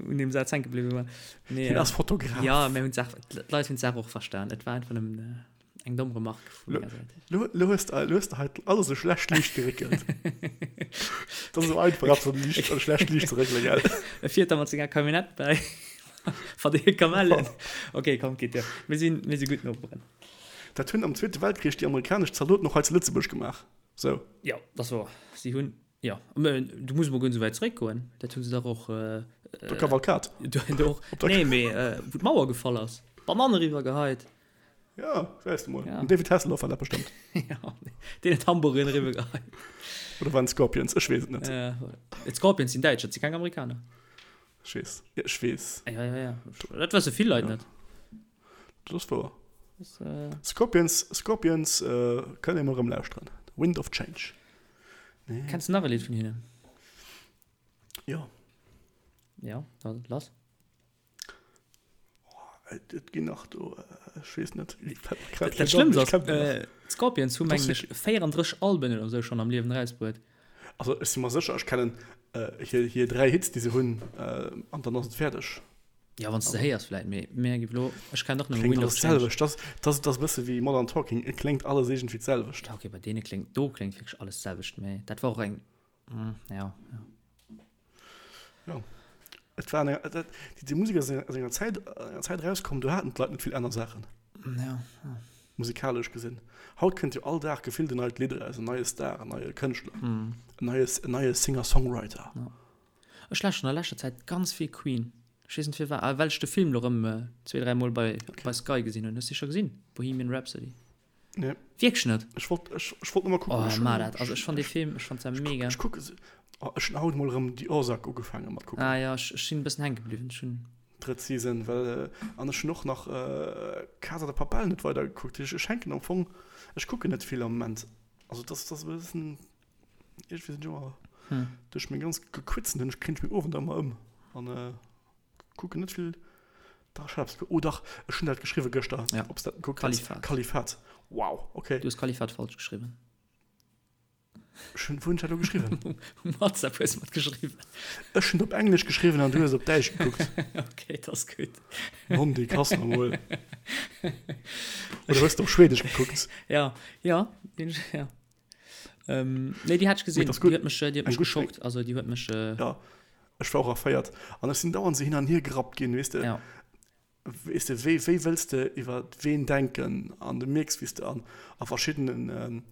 un deem Saz hänke bliwwe war. Nee, Hien ass Fotograf. Ja, mir hunn d'Saach, d'Leit hunn d'Saach och verstan. Et war einfach nëmmen eng domm Remarque vu menger Säit. Lo, lo hues de, lo hues de hei alles a schlecht Liicht geréckelt. Dat ass esou einfach, eppes an Liicht, an schlecht Liicht ze réckelen, gell? E fiert da mat senger Camionnette bäi, verdeelt Kamellen. Okay, komm, geet duer. Mir sinn, mir si gutt Noperen. Dat hunn am Zweete Weltkrich déi amerikanesch Zaldoten och hei zu Lëtzebuerg gemaach. Sou. Jo, dat ass wouer. Si hunn Jo, mä du muss emol guer net esou wäit zeréckgoen. Dat hu se dach och. Der Kavalkad. Do och. Nee, mee wou d'Mauer gefall ass. D'Banann eriwwer geheit. Jo, gesäis de mol. Den David Hasselhoff war dat bestëmmt. Jo, deen huet Hamburgeren eriwwer geheit. Oder waren et d'Scorpions? Ech weess et net. D'Scorpions sinn Däitsch, dat si keng Amerikaner. Ech weess. Jo, ech weess. Jo, jo, jo. Dat wësse vill Leit net. Dat ass wouer. Scorpions, Scorpions kënnt ee mol erëm lauschteren. Wind of Change. Nee. Kenns du nach e Lidd vun hinnen? Jo. Ja, da lass. Oh, et ginn nach do, ech weess net. Dat Schlëmmst ass, d'Scorpions hu mengen ech 34 Alben oder sou schonn am Liewen erausbruet. Also ech si mer sécher, ech kennen hir, hir 3 Hits, déi se hunn, an dann ass et fäerdeg. Ja, wann s de se héiers vläit, mee mir gi lo, ech kennen och nëmme Wind of Change. Kléngt alles d'selwecht. Dat ass e bësse wéi Modern Talking, et kléngt alles iergendwéi d'selwecht. Ja, okay, bei deene kléngt, do kléngt wierklech alles d'selwecht, mee dat war och eng, ja, ja. Jo, et war eng, dat, déi Musek ass aus enger Zäit, enger Zäit erauskomm, do haten d'Leit net vill aner Saachen. Ja, ja. Musikalesch gesinn. Haut kënnt jo all Dag gefillt en neit Lidd eraus, en neie Star, en neie Kënschtler, en neie, en neie Singer-Songwriter. Ja. Ech lauschteren a leschter Zäit ganz vill Queen. Ech weess net firwat, ah well ech de Film lo rëm zwee, dräi Mol bei, bei Sky gesinn hunn. Hues de scho gesinn? Bohemian Rhapsody? Nee. Wierklech net? Ech wollt, ech, ech wollt nëmme kucken. Oh, ech ma dat. Also ech fand dee Film, ech fand se mega. Ech kucke se, oh, ech hunn haut mol erëm The Ozark ugefaange mat kucken. Ah ja, ech, ech sinn e bëssen hänke bliwwen. Ech hunn. Drëtt Season, well, an ech hunn och nach Casa de Papel net weider gekuckt. Ech, ech hänken am Fong, ech kucken net vill am Moment. Also dat ass, dat ass e bëssen, iergendwéi sinn ech ëmmer, duerch meng ganz Gequitzen hunn ech, kréien ech meng Owender ëmmer ëm an. Kucken net vill. Dach, ech hat eppes ge-, oh dach, ech hunn dat geschriwwe gëschter, Ja. ob s dat gekuckt hues. Kalifat. Kalifat. Wow, okay. Du hues Kalifat falsch geschriwwen. Ech hunn, wou hunn ech dat elo geschriwwen? Um WhatsApp hues de mat geschriwwen. Ech hunn et op Englesch geschriwwen an du hues et op Däitsch gekuckt. Okay, dat ass gutt. Mondi, kass mer mol. Oder hues de op Schwedesch gekuckt? Ja, ja, deen, ja. Ähm, nee, déi hat ech gesinn. Mee dat ass gutt. Déi huet mech, déi huet Eng mech gutt, geschockt. Also déi huet mech. Äh, Ja, ech war och erféiert. An ech sinn dauernd esou hin an hier gerappt ginn, weess de. Ja. Weess de, wéi, wéi wëlls de iwwer ween denken? An du mierks, wéi s de an, a verschiddenen,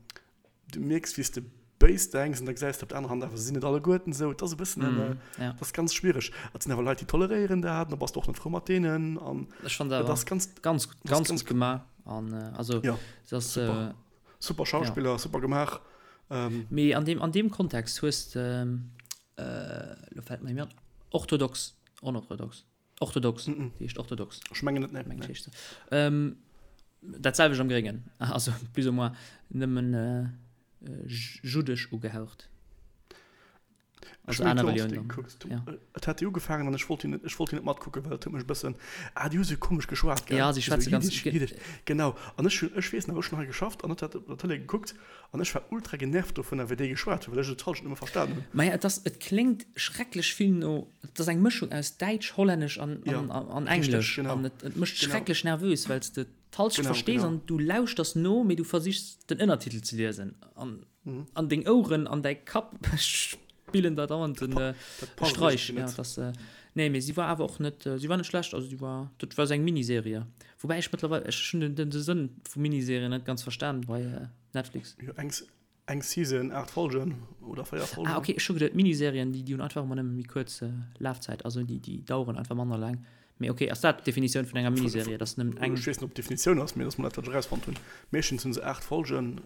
du mierks, wéi s de béis denks an da gesäis de op der anerer Hand awer, se sinn net alleguerten esou. Et ass e bëssen en, Mm, ja. et ass ganz schwiereg. Et sinn awer Leit, déi toleréieren dat, an da bass de och net frou mat deenen. An Ech fand et awer ass ganz, ganz, et ass ganz ganz gutt gemaach. An äh, also Ja, se ass, super. äh, Super Schauspiller, ja. super gemaach. Ähm. Mee an deem, an deem Kontext hues de, äh, lo fällt mer an, orthodox, onorthodox, orthodox, mm -mm. déi heescht orthodox. Ech mengen net, nee. Mengen nee. Heescht se. Ähm, dat selwecht am Gréngen, also plus ou moins nëmmen äh, juddesch ugehaucht. Also aner Relioun dann. Ja. Et hat déi ugefaangen an ech wollt déi net, ech wollt déi net matkucken, well et huet mech e bëssen, ah déi hu sou komesch geschwat, gell? Ja, si schwätze ganz Jiddisch, Jiddisch, genau. An ech hunn, ech weess nach, ech hunn hei geschafft an et hat op der Tëlee gekuckt an ech war ultra genervt dovunner, wéi déi geschwat hunn, well ech et d'Hallschent net méi verstan hunn. Maja, et ass, et kléngt schrecklech vill no, et ass eng Mëschung aus Däitsch, Hollännesch an, Ja, an, an richteg, Englesch genau. an et, et mécht Genau. schrecklech nervös, well s de d'Hallschent Genau, verstees genau. an du lauschters no, mee du versichs den Ënnertitel ze liesen an An deng Oueren an däi Kapp spillen der dauernd den Streich. Ja, das, äh, nee, mee si war awer och net, si war net schlecht, also si war, dat war sou eng Miniserie. Woubäi ech mëttlerweil, ech hunn den, den Sënn vu Miniserien net ganz verstan bei Netflix. Jo, eng, eng Season, 8 Folgen oder 4 Folgen. Ah, okay, ech hu geduet, Miniserien, déi, déi hunn einfach ëmmer nëmme méi kuerz Lafzäit, also déi, déi daueren einfach manner laang. Mee ok, ass dat d'Definitioun vun enger Miniserie, dass nëmmen eng. Ech weess net, ob d'Definitioun ass, mee dass mer dat, wat ech erausfonnt hunn. Meeschtens hunn se 8 Folgen,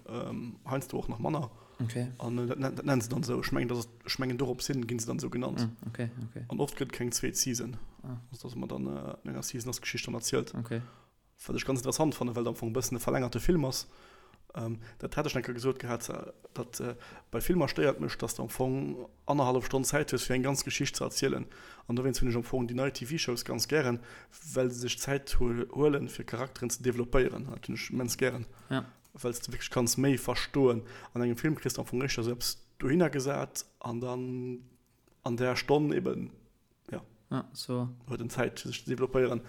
heiansdo och nach manner. Ok. An dat dat nennen se dann esou. Ech mengen, dass et, ech mengen dorops hin ginn se dann esou genannt. Ah, ok, ok. An oft gëtt et keng zweet Season. Ah. Also dass mer dann an enger Season ass d'Geschicht dann erzielt. Ok. Wat ech ganz interessant fannen, well et am Fong e bëssen e verlängerte Film ass. Dat hat ech eng Kéier gesot gehat, datt bei Filmer stéiert mech, datt s de am Fong annerhallef Stonn Zäit hues, fir eng ganz Geschicht ze erzielen. An dowéinst hunn ech am Fong déi nei TV-Shows ganz gären, well se sech Zäit huelen, fir Charakteren ze developpéieren. Dat hunn ech immens gären, well s de wierklech kanns méi verstoen. An engem Film kriss de am Fong éischter esou eppes dohinner gesat an dann an där Stonn eben ja ja, so. huet en Zäit fir sech ze developpéieren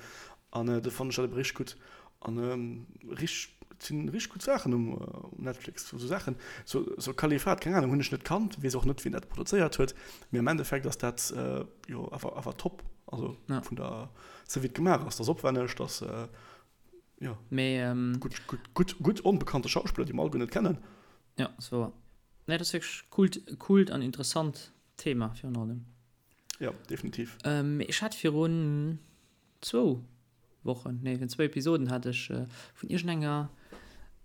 an äh, do fannen ech dat ebe richteg gutt an ähm, richteg et sinn richteg gutt Saachen um, um Netflix so Saachen so, so Kalifat keng Ahnung hunn ech net kannt weess och net wien dat produzéiert huet mee am Endeffekt ass dat äh, jo awer awer top also ja. vun der sou wéi et gemaach ass dat ass opwänneg dat äh, ja mee ähm, gutt gutt gutt gutt onbekannte Schauspiller déi mer alleguer net kennen ja so nee dat ass wierklech coolt coolt an interessant Thema virun allem. Ja, definitiv. Ähm, ech hat virun zwou Wochen, nee, virun zwou Episoden hat ech äh, vun iergendenger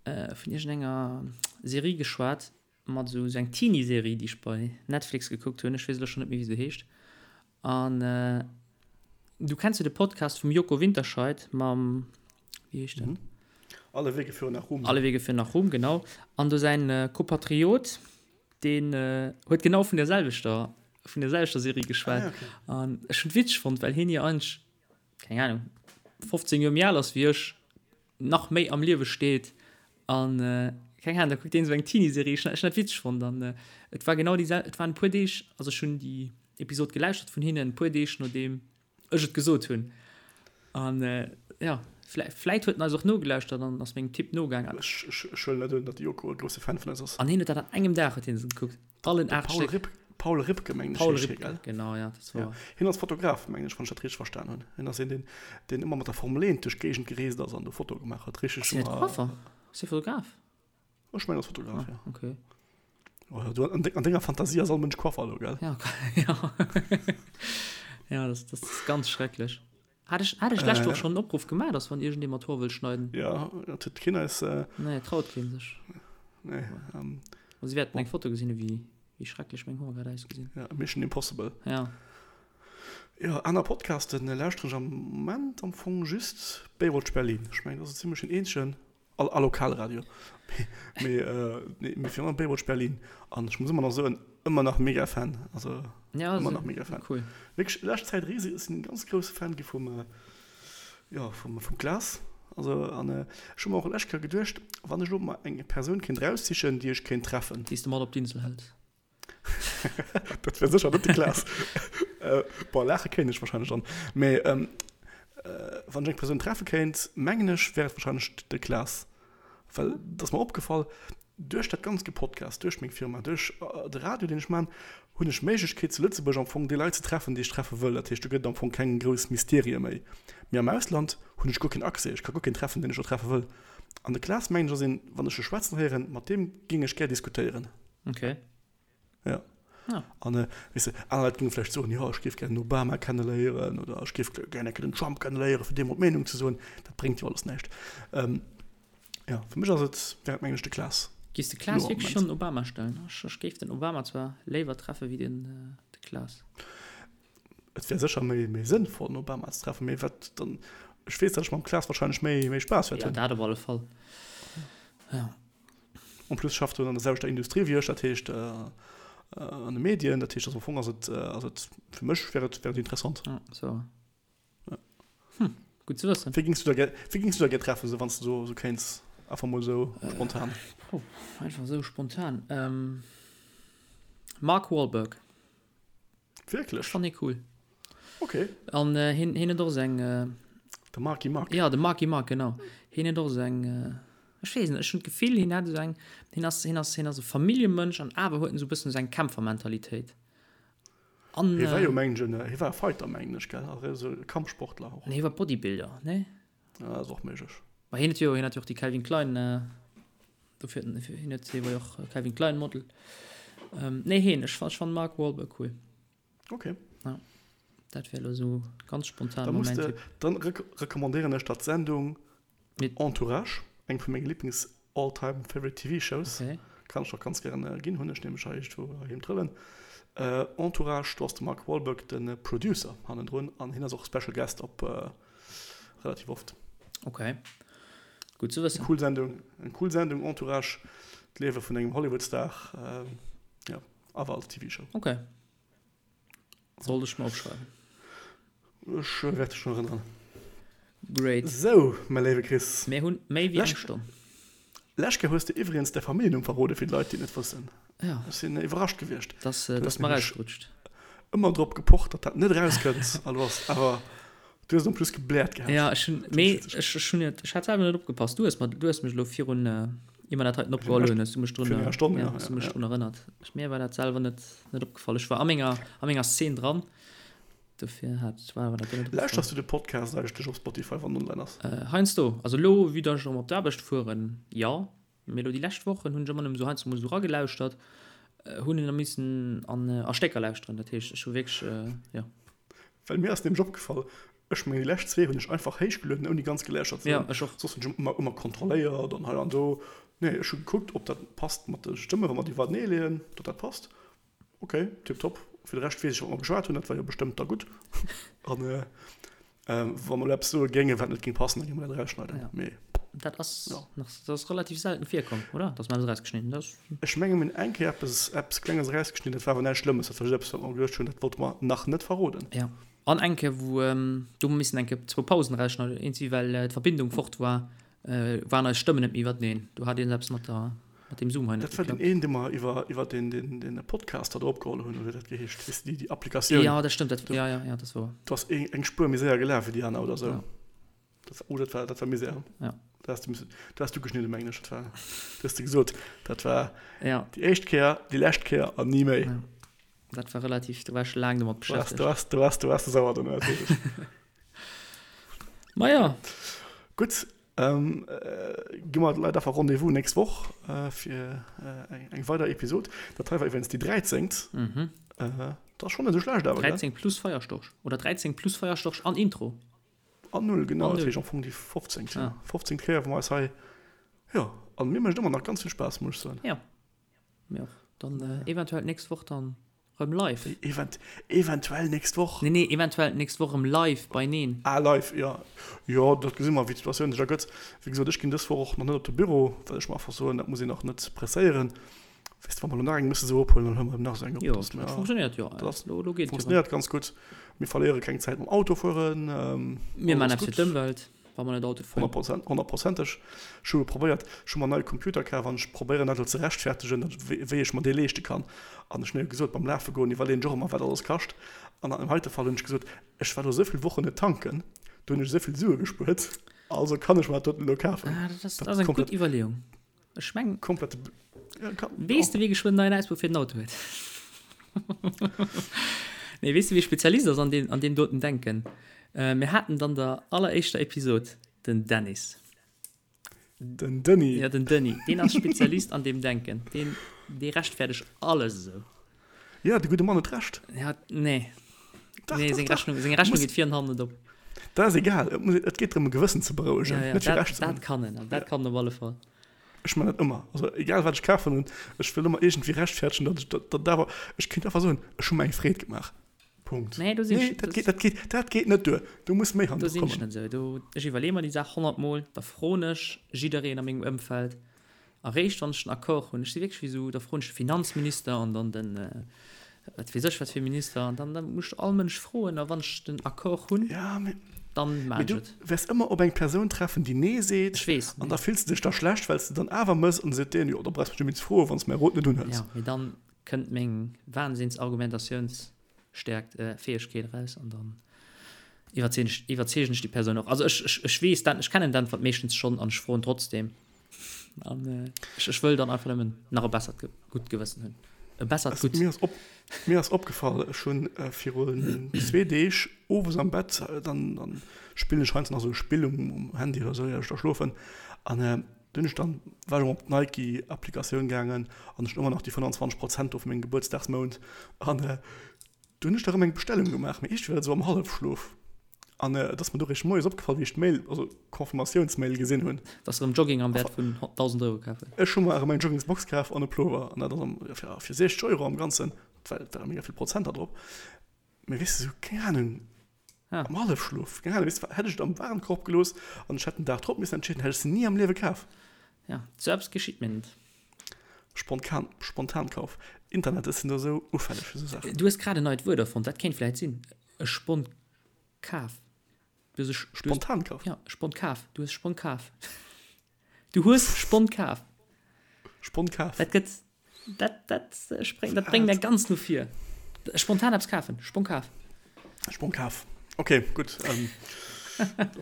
äh, vun iergendenger Serie geschwat, mat esou esou eng Teenie-Serie, déi ech bei Netflix gekuckt hunn. Ech weess elo schonn net méi, wéi se heescht. An äh, du kenns jo de Podcast vum Joko Winterscheidt mam, wéi heescht en? Mhm. Alle Wege führen nach Ruhm. Alle Wege führen nach Ruhm, genau. An do säin äh, Kopatriot, Deen huet genau vun der selwechter vun der selwechter Serie geschwat. Ah, okay. An ech hunn witzeg fonnt, well hien jo eigentlech, keng Ahnung, 15 Joer méi al ass wéi ech, nach méi am Liewe steet an äh, keng Ahnung, da kuckt deen esou eng Teenie-Serie. Ech hunn dat witzeg fonnt an äh, et war genau déi sel et waren e puer Deeg, also ech hunn déi Episod gelauschtert vun hinnen, e puer Deeg nodeem ech et gesot hunn. An jo, vläit huet en eis och nogelauschtert an ass mengem Tipp nogaangen. Ech huelen net un, datt de Joko e grousse Fan vun eis ass. An hien huet dat an engem Dag huet hien se gekuckt, allen 8 Stéck. Paul Ripke, mengen ech, Paul heescht hie, Ripke, gell? genau, ja, dat war. Ja. Hien ass Fotograf, mengen ech, wann ech dat richteg verstan hunn. Hien ass een, deen, deen ëmmer mat der Formel 1 duerch d'Géigend gereest ass an do Fotoe gemaach huet. Richteg Ass hien net Coiffer? Ass hie Fotograf? Ech mengen, ass Fotograf, ah, ja. Okay. Oh, du, an, de, an denger Fantasie ass all Mënsch Coiffer elo, gell? Ja, ja. ja, das, das ist ganz schrecklech. Hat ech, hat ech d'lescht Woch schonn en Opruff gemaach, dass wann iergendee mer d'Hoer wëll schneiden? Ja, dat huet keen eis. Äh, Nee, traut keen sech. nee, ähm, Ma si wäerten eng Foto gesinn, wéi, wéi schrecklech meng Hoer grad ausgesinn. ja, Mission Impossible. Ja. Ja, aner Podcasten lauschteren ech am Moment am Fong just Baywatch Berlin. Ech mengen, dat ass esou zimlech den eenzegen. A Lokalradio. Mee, nee, mee virun allem Baywatch Berlin. An ech muss ëmmer nach soen, ëmmer nach mega Fan. Also, ja, ëmmer nach mega Fan. Cool. Wierklech, lescht Zäit riseg, ech sinn e ganz grousse Fan gi vum, jo, vum, vum Klaas. Also, an ech hu mer och lescht Kéier geduecht, wann ech elo mer eng Persoun kéint eraussichen, déi ech kéint treffen. Déi s de mat op d'Insel hëls. Dat wär sécher net de Klaas. Bon, laache kéint ech warscheinlech dann. Mee wann ech eng Persoun treffe kéint, mengen ech, wär et warscheinlech de Klaas. Well et ass mer opgefall, duerch dat ganzt Gepodcast, duerch meng Firma, duerch de Radio, deen ech man, hunn ech d'Méiglechkeet zu Lëtzebuerg am Fong déi Leit ze treffen, déi ech treffe wëll. Dat heescht, do gëtt et am Fong keng grouss Mysterië méi. Mee am Ausland hunn ech guer keen Accès, ech ka guer keen treffen, deen ech do treffe wëll. An de Klaas, mengen ech, ass een, wann ech e schwätzen héieren, mat deem géing ech gär diskutéieren. Okay. Ja. Ja. An äh, weess de, aner Leit géinge vläicht soen, jo, ech géif gär den Obama kenneléieren oder ech géif gär eng Kéier den Trump kenneléieren, fir deem mol d'Meenung ze soen. Dat bréngt jo alles näischt. Ähm, ja, fir mech ass et, wär et mengen ech de Klaas. Giss de Klaas wierklech schonn den Obama stellen? Ech, ech géif den Obama zwar léiwer treffe wéi den, äh, de Klaas. Et wär sécher méi, méi sënnvoll, den Obama ze treffen, mee wat dann, ech weess, datt ech mam Klaas wahrscheinlech méi, méi Spaass wäert hunn. Ja, dat op alle Fall. Ja. En plus schafft en an der selwechter Industrie wéi ech, dat heescht an de Medien, dat heescht also am Fong ass et ass et fir mech wär et wär et interessant. Ja, so. Ja. Hm, gutt ze wëssen. Wéi gings du da gär wéi gings du da gär treffen, sou wann s du sou sou kéints einfach mol sou spontan? Puh, einfach sou spontan. Ähm, Mark Wahlberg. Wierklech? Ech fannen hie cool. Okay. An äh, hien, hien huet och sou eng. Äh, de Marky Mark. Ja, de Marky Mark, genau. Hien huet och sou eng. Äh, ech weess net, ech hunn d'Gefill, hien hätt esou eng. Hien ass, hien ass, hien ass e Familljemënsch an awer huet en esou e bëssen esou eng Kämpfermentalitéit. An, hie war jo, mengen ech, hie war e Fighter, mengen ech, gell? Also esou e Kampfsportler och. Nee, hie war Bodybuilder, nee? Ja, ass och méiglech. Ma hien huet jo, hien hat jo och déi Calvin Klein, dofir, hien huet, hie war jo och Calvin Klein Model. Nee, hien, ech ech fannen Mark Wahlberg cool. Okay. Ja, dat wär elo sou ganz spontan Da muss de, dann recommandéieren ech der d'Sendung Entourage, eng vu menge Lieblings all time favorite TV shows. Okay. Kann ech och ganz gären ginn, hunn ech nämlech hei iergendwou heiheem trëllen. Entourage, do ass de Mark Wahlberg de Producer hannendrun an hien ass och Special Guest op Relativ oft. Ok. Gutt ze wëssen. Eng cool Sendung, eng cool Sendung, Entourage, d'Liewe vun engem Hollywood-Star, jo, awer als TV-Show. Ok. Sollt ech mer opschreiwen. Ech wäert dech drun erënneren. Great. Sou, mäi léiwe Chris. Mir hunn méi wéi eng Stonn. Lescht Kéier hues de iwwregens däi Familljennumm verrode fir d'Leit, déi et net wëssen. Ja. Ech sinn iwwerrascht gewiescht. Dass, dass mer erausgerutscht. Ëmmer drop gepocht, datt dat net erauskënnt. A lo ass awer, du hues et en plus gebläert gehat. Ja, ech hunn, mee ech, ech hunn net, ech hat selwer net opgepasst. Du hues mer, du hues mech elo virun, ier mer dat heiten opgeholl hunn, hues du mech drun, Virun enger Stonn, ja, hues du mech drun erënnert. Ech, mir war dat selwer net, net opgefall. Ech war a menger, a menger Szene dran. Dofir hat, war mer dat net opgefall. Lauschters du de Podcast eigentlech op Spotify, wann en online ass? Heiansdo. Also elo, vue dass ech erëm op d'Aarbecht fueren, jo. Mee elo déi lescht Wochen hunn ech ëmmer nëmmen esou heiansdo mol esou eragelauschtert, hunn en da missen an a Stécker lauschteren. Dat heescht, ech hu wierklech, jo. Well mir ass nämlech opgefall, ech mengen déi lescht zwee hunn ech einfach héichgelueden ouni ganz geläuschert ze hunn. Ja, ech och. Soss hunn ech ëmmer ëmmer kontrolléiert an hei an do. Nee, ech hu gekuckt, ob dat passt mat de Stëmmen, wa mer déi iwwertenee leeën, datt dat passt. Ok, tiptop. Fir de Rescht weess ech, wat mer geschwat hunn, dat war jo bestëmmt da gutt. An wa mer elo eppes soe géingen, wat net géing passen, da géinge mer dat erausschneiden. Ja. Mee. Dat ass ja. nach, dat ass relativ selten virkomm, oder? Dass mer eppes erausgeschnidden hunn. Dat. Ech menge mir hunn eng Kéier eppes, eppes Klenges erausgeschnidden, dat war awer näischt Schlëmmes, dat war just eppes, wat mer geduecht hunn, dat wollte mer nach net verroden. Ja. An eng Kéier, wou, do hu mer missen eng Kéier zwou Pausen erausschneiden, eenzi well d'Verbindung fort war, waren eis Stëmmen net méi iwwerteneen. Do hat iergend eppes mat der, mat deem Zoom hei net geklappt. Dat war deen een, dee mer iwwer, iwwer deen, deen, deen Podcaster do opgeholl hunn, oder wéi dat geheescht, weess de, déi, déi Applikatioun. Jo, dat stëmmt, dat, jo, jo, jo, dat ass wouer. Do ass eng, eng Spuer méi séier gelaf wéi déi aner oder sou. Ja. Dat, oh, dat war, dat war Misär. Ja. Dat has du missen, dat has du geschnidden, mengen ech. Dat war, du has de gesot, dat war ja. déi éischt Kéier, déi lescht Kéier an ni méi. Ja. Dat war relativ, do war ech laang domat beschäftegt. Du waars, du waars, du waars sauer dono, dat weess ech. Ma ja. Gutt, gi mer de Leit einfach Rendez-vous nächst Woch fir eng weider Episod. Dat hei war iwwregens déi dräizéngt. Dat ass schonn net esou schlecht awer, gell? 13 plus Feierstorch. Oder 13 plus Feierstorch an Intro. An null, genau. Dat heescht am Fong déi fofzéngt. Fofzéngt Kéier, wou mer eis hei, jo, an mir mécht ëmmer nach ganz vill Spaass, muss ech soen. Jo. Mir och. Dann eventuell d'nächst Woch dann rëm live. Event, eventuell nächst Woch? Nee, nee, eventuell d'nächst Woch rëm live beineen. Ah, live, jo. Jo, dat gesi mer, wéi d'Situatioun sech ergëtt. Wéi gesot, ech ginn dës Woch och nach net op de Büro, well ech mer einfach soen, dat muss een och net presséieren. Weess de, wa mer elo nach eng musse sou ophuelen, dann huele mer eben nach esou eng op. Jo, dat funktionéiert jo. Dat elo geet jo. Funktionéiert ganz gutt. Mir verléiere keng Zäit mam Autofueren. Mir maachen eppes fir d'Ëmwelt. Wa mer net Auto fueren. 100%, honnertprozenteg. Ech hu probéiert, ech hu mer en neie Computer kaf an ech probéieren dat elo ze rechtfertegen, datt, wéi ech mer dee leeschte kann. An ech hunn jo gesot, beim Lafe goen iwwerleeën ech och ëmmer, wat alles kascht. An an deem heite Fall hunn ech gesot, ech war elo esou vill Wochen net tanken, do hunn ech esou vill Sue gespuert, also kann ech mer dat doten elo kafen. Ah, dat ass, dat ass eng gutt Iwwerleeung. Ech meng. Komplette. Ja, kann, weess de, wie geschwënn neien Auspuff fir den Auto huet? Nee, weess de, wie Spezialist ass an deem, an deem doten Denken? Äh, mir haten dann der alleréischter Episod den Dennis. Den Denis. Ja, den Denis. Deen ass Spezialist an deem Denken. Deen, dee rechtfäerdegt alles esou. Ja, de gudde Mann huet Recht. Ja, nee. Dach, nee, seng Rechnung, seng Rechnung geet vir an hannen net op. Dat ass egal, et muss, et geet drëm e Gewëssen ze berouegen, ja, ja, net fir Recht ze hunn. Dat kann en, dat kann en op alle Fall. Ech man dat ëmmer, also egal wat ech kafen hunn, ech wëll ëmmer iergendwéi rechtfäerdegen, datt ech dat, dat awer, ech kéint einfach soen, ech hu mer eng Freed gemaach. Punkt. Nee, do sinn ech, dat geet, dat geet, dat geet net duer, do muss méi hannendru kommen. Do sinn ech net esou, do, ech iwwerleeë mer déi Saach honnertmol, da froen ech jiddereen a mengem Ëmfeld, Eréischt wann ech den Accord hunn, ech si wierklech wéi esou, da froen ech de Finanzminister an dann den wat weess ech wat fir Minister an dann dann muss ech all Mënsch froen a wann ech den Accord hunn, Ja, mee, dann maan mee ech du et. wäers ëmmer op eng Persoun treffen, déi Nee seet Ech weess, an da fills de dech da schlecht, well s de dann awer mëss an da seet deen, jo, da brauchs mech net méi ze froen, wann s mäi Rot net unhëls. Ja, mee dann kënnt meng Wahnsinnsargumentatiouns Stäerkt, Fäegkeet eraus an dann iwwerzeegen ech, iwwerzeegen ech déi Persoun och. Also ech, ech, ech weess dat, ech kennen d'Äntwert meeschtens schonn an ech froen trotzdem. An ech, ech wëll dann einfach nëmmen nach e bessert Ge, gutt Gewëssen hunn. E bessert gutt. Mir ass op, mir ass opgefall, ech hunn virun zwee Deeg owes am Bett, dann, dann spillen ech heiansdo nach esou e Spill um, um Handy oder esou, ier ech da schlofen an du hunn ech dann, war ech erëm op d'Nike-Applikatioun gaangen an ech hunn ëmmer nach déi 25 Prozent do vu mengem Gebuertsdagsmount an du hunn ech da erëm eng Bestellung gemaach, mee iergendwéi war dat esou am Hallefschlof an et ass mer du réischt moies opgefall, wéi ech d'Mail, also d'Confirmatiounsmail gesinn hunn. Dass de erëm Jogging am Wäert vun 1.000 Euro kaf hues. Ech hu mer erëm eng Joggingsbox kaf an e Plover an dat ass am, fir, fir 60 Euro am Ganzen, well et ware mega vill Prozenter drop. Mee weess de, sou, keng Ahnung, am Hallefschlof, keng Ahnung, weess de, hätt ech et am Warenkorb gelooss an ech hätt den Dag drop missen entscheeden, hätt ech se ni am Liewe kaf. Ja, sou eppes geschitt mir net. Spontan, Spontankauf. Internet, ech sinn do sou ufälleg fir sou Saachen. Du hues grad en neit Wuert erfonnt, dat kéint vläit sinn, e Spontkaf. Du hues e Spontankaf? Ja, Spontkaf. Du hues Spontkaf. Du hues Spontkaf. Spontkaf. Dat gëtt, dat, dat spréngt, dat bréngt mär ganz no vir. Spontan eppes kafen. Spontkaf. Spontkaf. Okay, gutt. Ähm,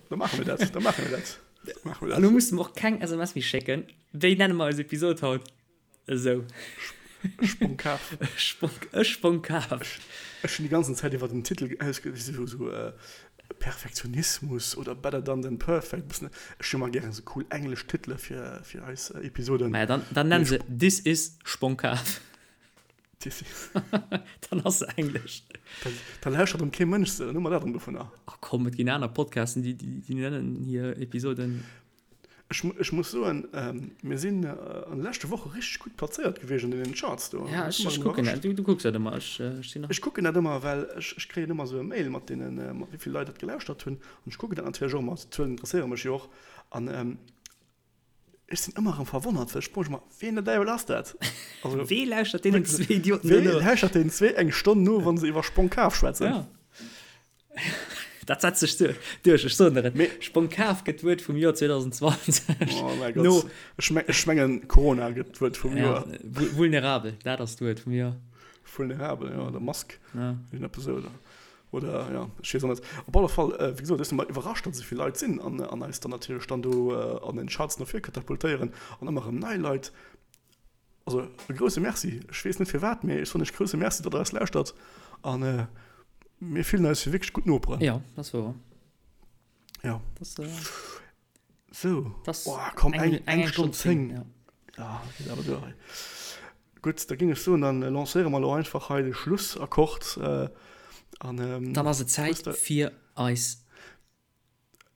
da maache mir dat. Da maache mir dat. Da maache mir dat. Elo muss de mer och keng SMS méi schécken. Wéi nenne mer eis Episod haut? Esou. Sponkaf. Sponk, e Sponkaf. Ech hunn déi ganzen Zäit iwwer den Titel ausge, esou, esou Perfektionismus oder Better done than perfect, bëssen, ech hu ëmmer gären esou cool englesch Titele fir, fir eis Episoden. Maja, dann, dann nenn se This is Sponkaf. This is. Dann ass se englesch. Da, da lauschtert erëm kee Mënsch se, dann hu mer dat erëm dovunner. Ach komm, et ginn aner Podcasten, déi, déi, déi nennen hir Episoden. Ech, ech muss soen, mir sinn an de leschte Woche richteg gutt plazéiert gewiescht an deenen Charts do. Ja, ech, ech kucken dat. Du, du kucks dat ëmmer. Ech, ech sinn nach. Ech kucken dat ëmmer, well ech, ech kréien ëmmer esou e Mail mat deenen, mat wéi vill Leit dat gelauschtert hunn. An ech kucken dat natierlech och ëmmer. D'Zuelen interesséiere mech jo och. An ech sinn ëmmer erëm verwonnert, well ech froe mech ëmmer, Ween der Däiwel ass dat? Also, Wee lauschtert deenen zwee Idioten do no? Wee lauschtert deenen zwee eng Stonn no, wa se iwwer Sponkaf schwätzen? Ja. Dat setzt sech duerch, ech soen der et. Sponkaf gëtt d'Wuert vum Joer 2020. Oh mäi Gott. No, ech, me ech mengen, Corona gëtt d'Wuert vum Joer. Ja, vulnerabel, dat ass d'Wuert vum Joer. Vulnerabel, ja, oder Mask. Ja. Irgendeppes esou, oder, oder ja, ech weess och net. Op alle Fall, äh, wéi gesot, ech sinn emmer iwwerrascht, datt esou vill Leit sinn an, an eis dann natierlech dann do äh, an den Charts no vir katapultéieren an ëmmer erëm nei Leit. Also e grousse Merci. Ech weess net firwat, mee ech soen iech grousse Merci, datt der eis lauschtert. An mir fillen eis wéi wierklech gutt Noperen. Jo, dat ass wouer. Jo. Dat, äh, Sou. Das oh, komm, eng, eng, eng Stonn 10. Ja, ja geet awer duer hei. Gutt, da géing ech soen, dann lancéiere mer elo einfach hei de Schlussakkord. Äh, an, ähm, dann ass et Zäit fir eis.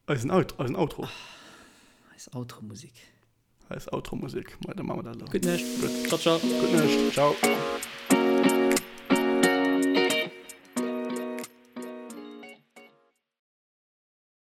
Eisen, Out, eisen Outro. Eis Outro-Musik. Eis Outro-Musik. Mei, da maache mer dat elo. Gutt Nuecht. Gutt. Ciao, ciao. Gutt Nuecht. Ciao.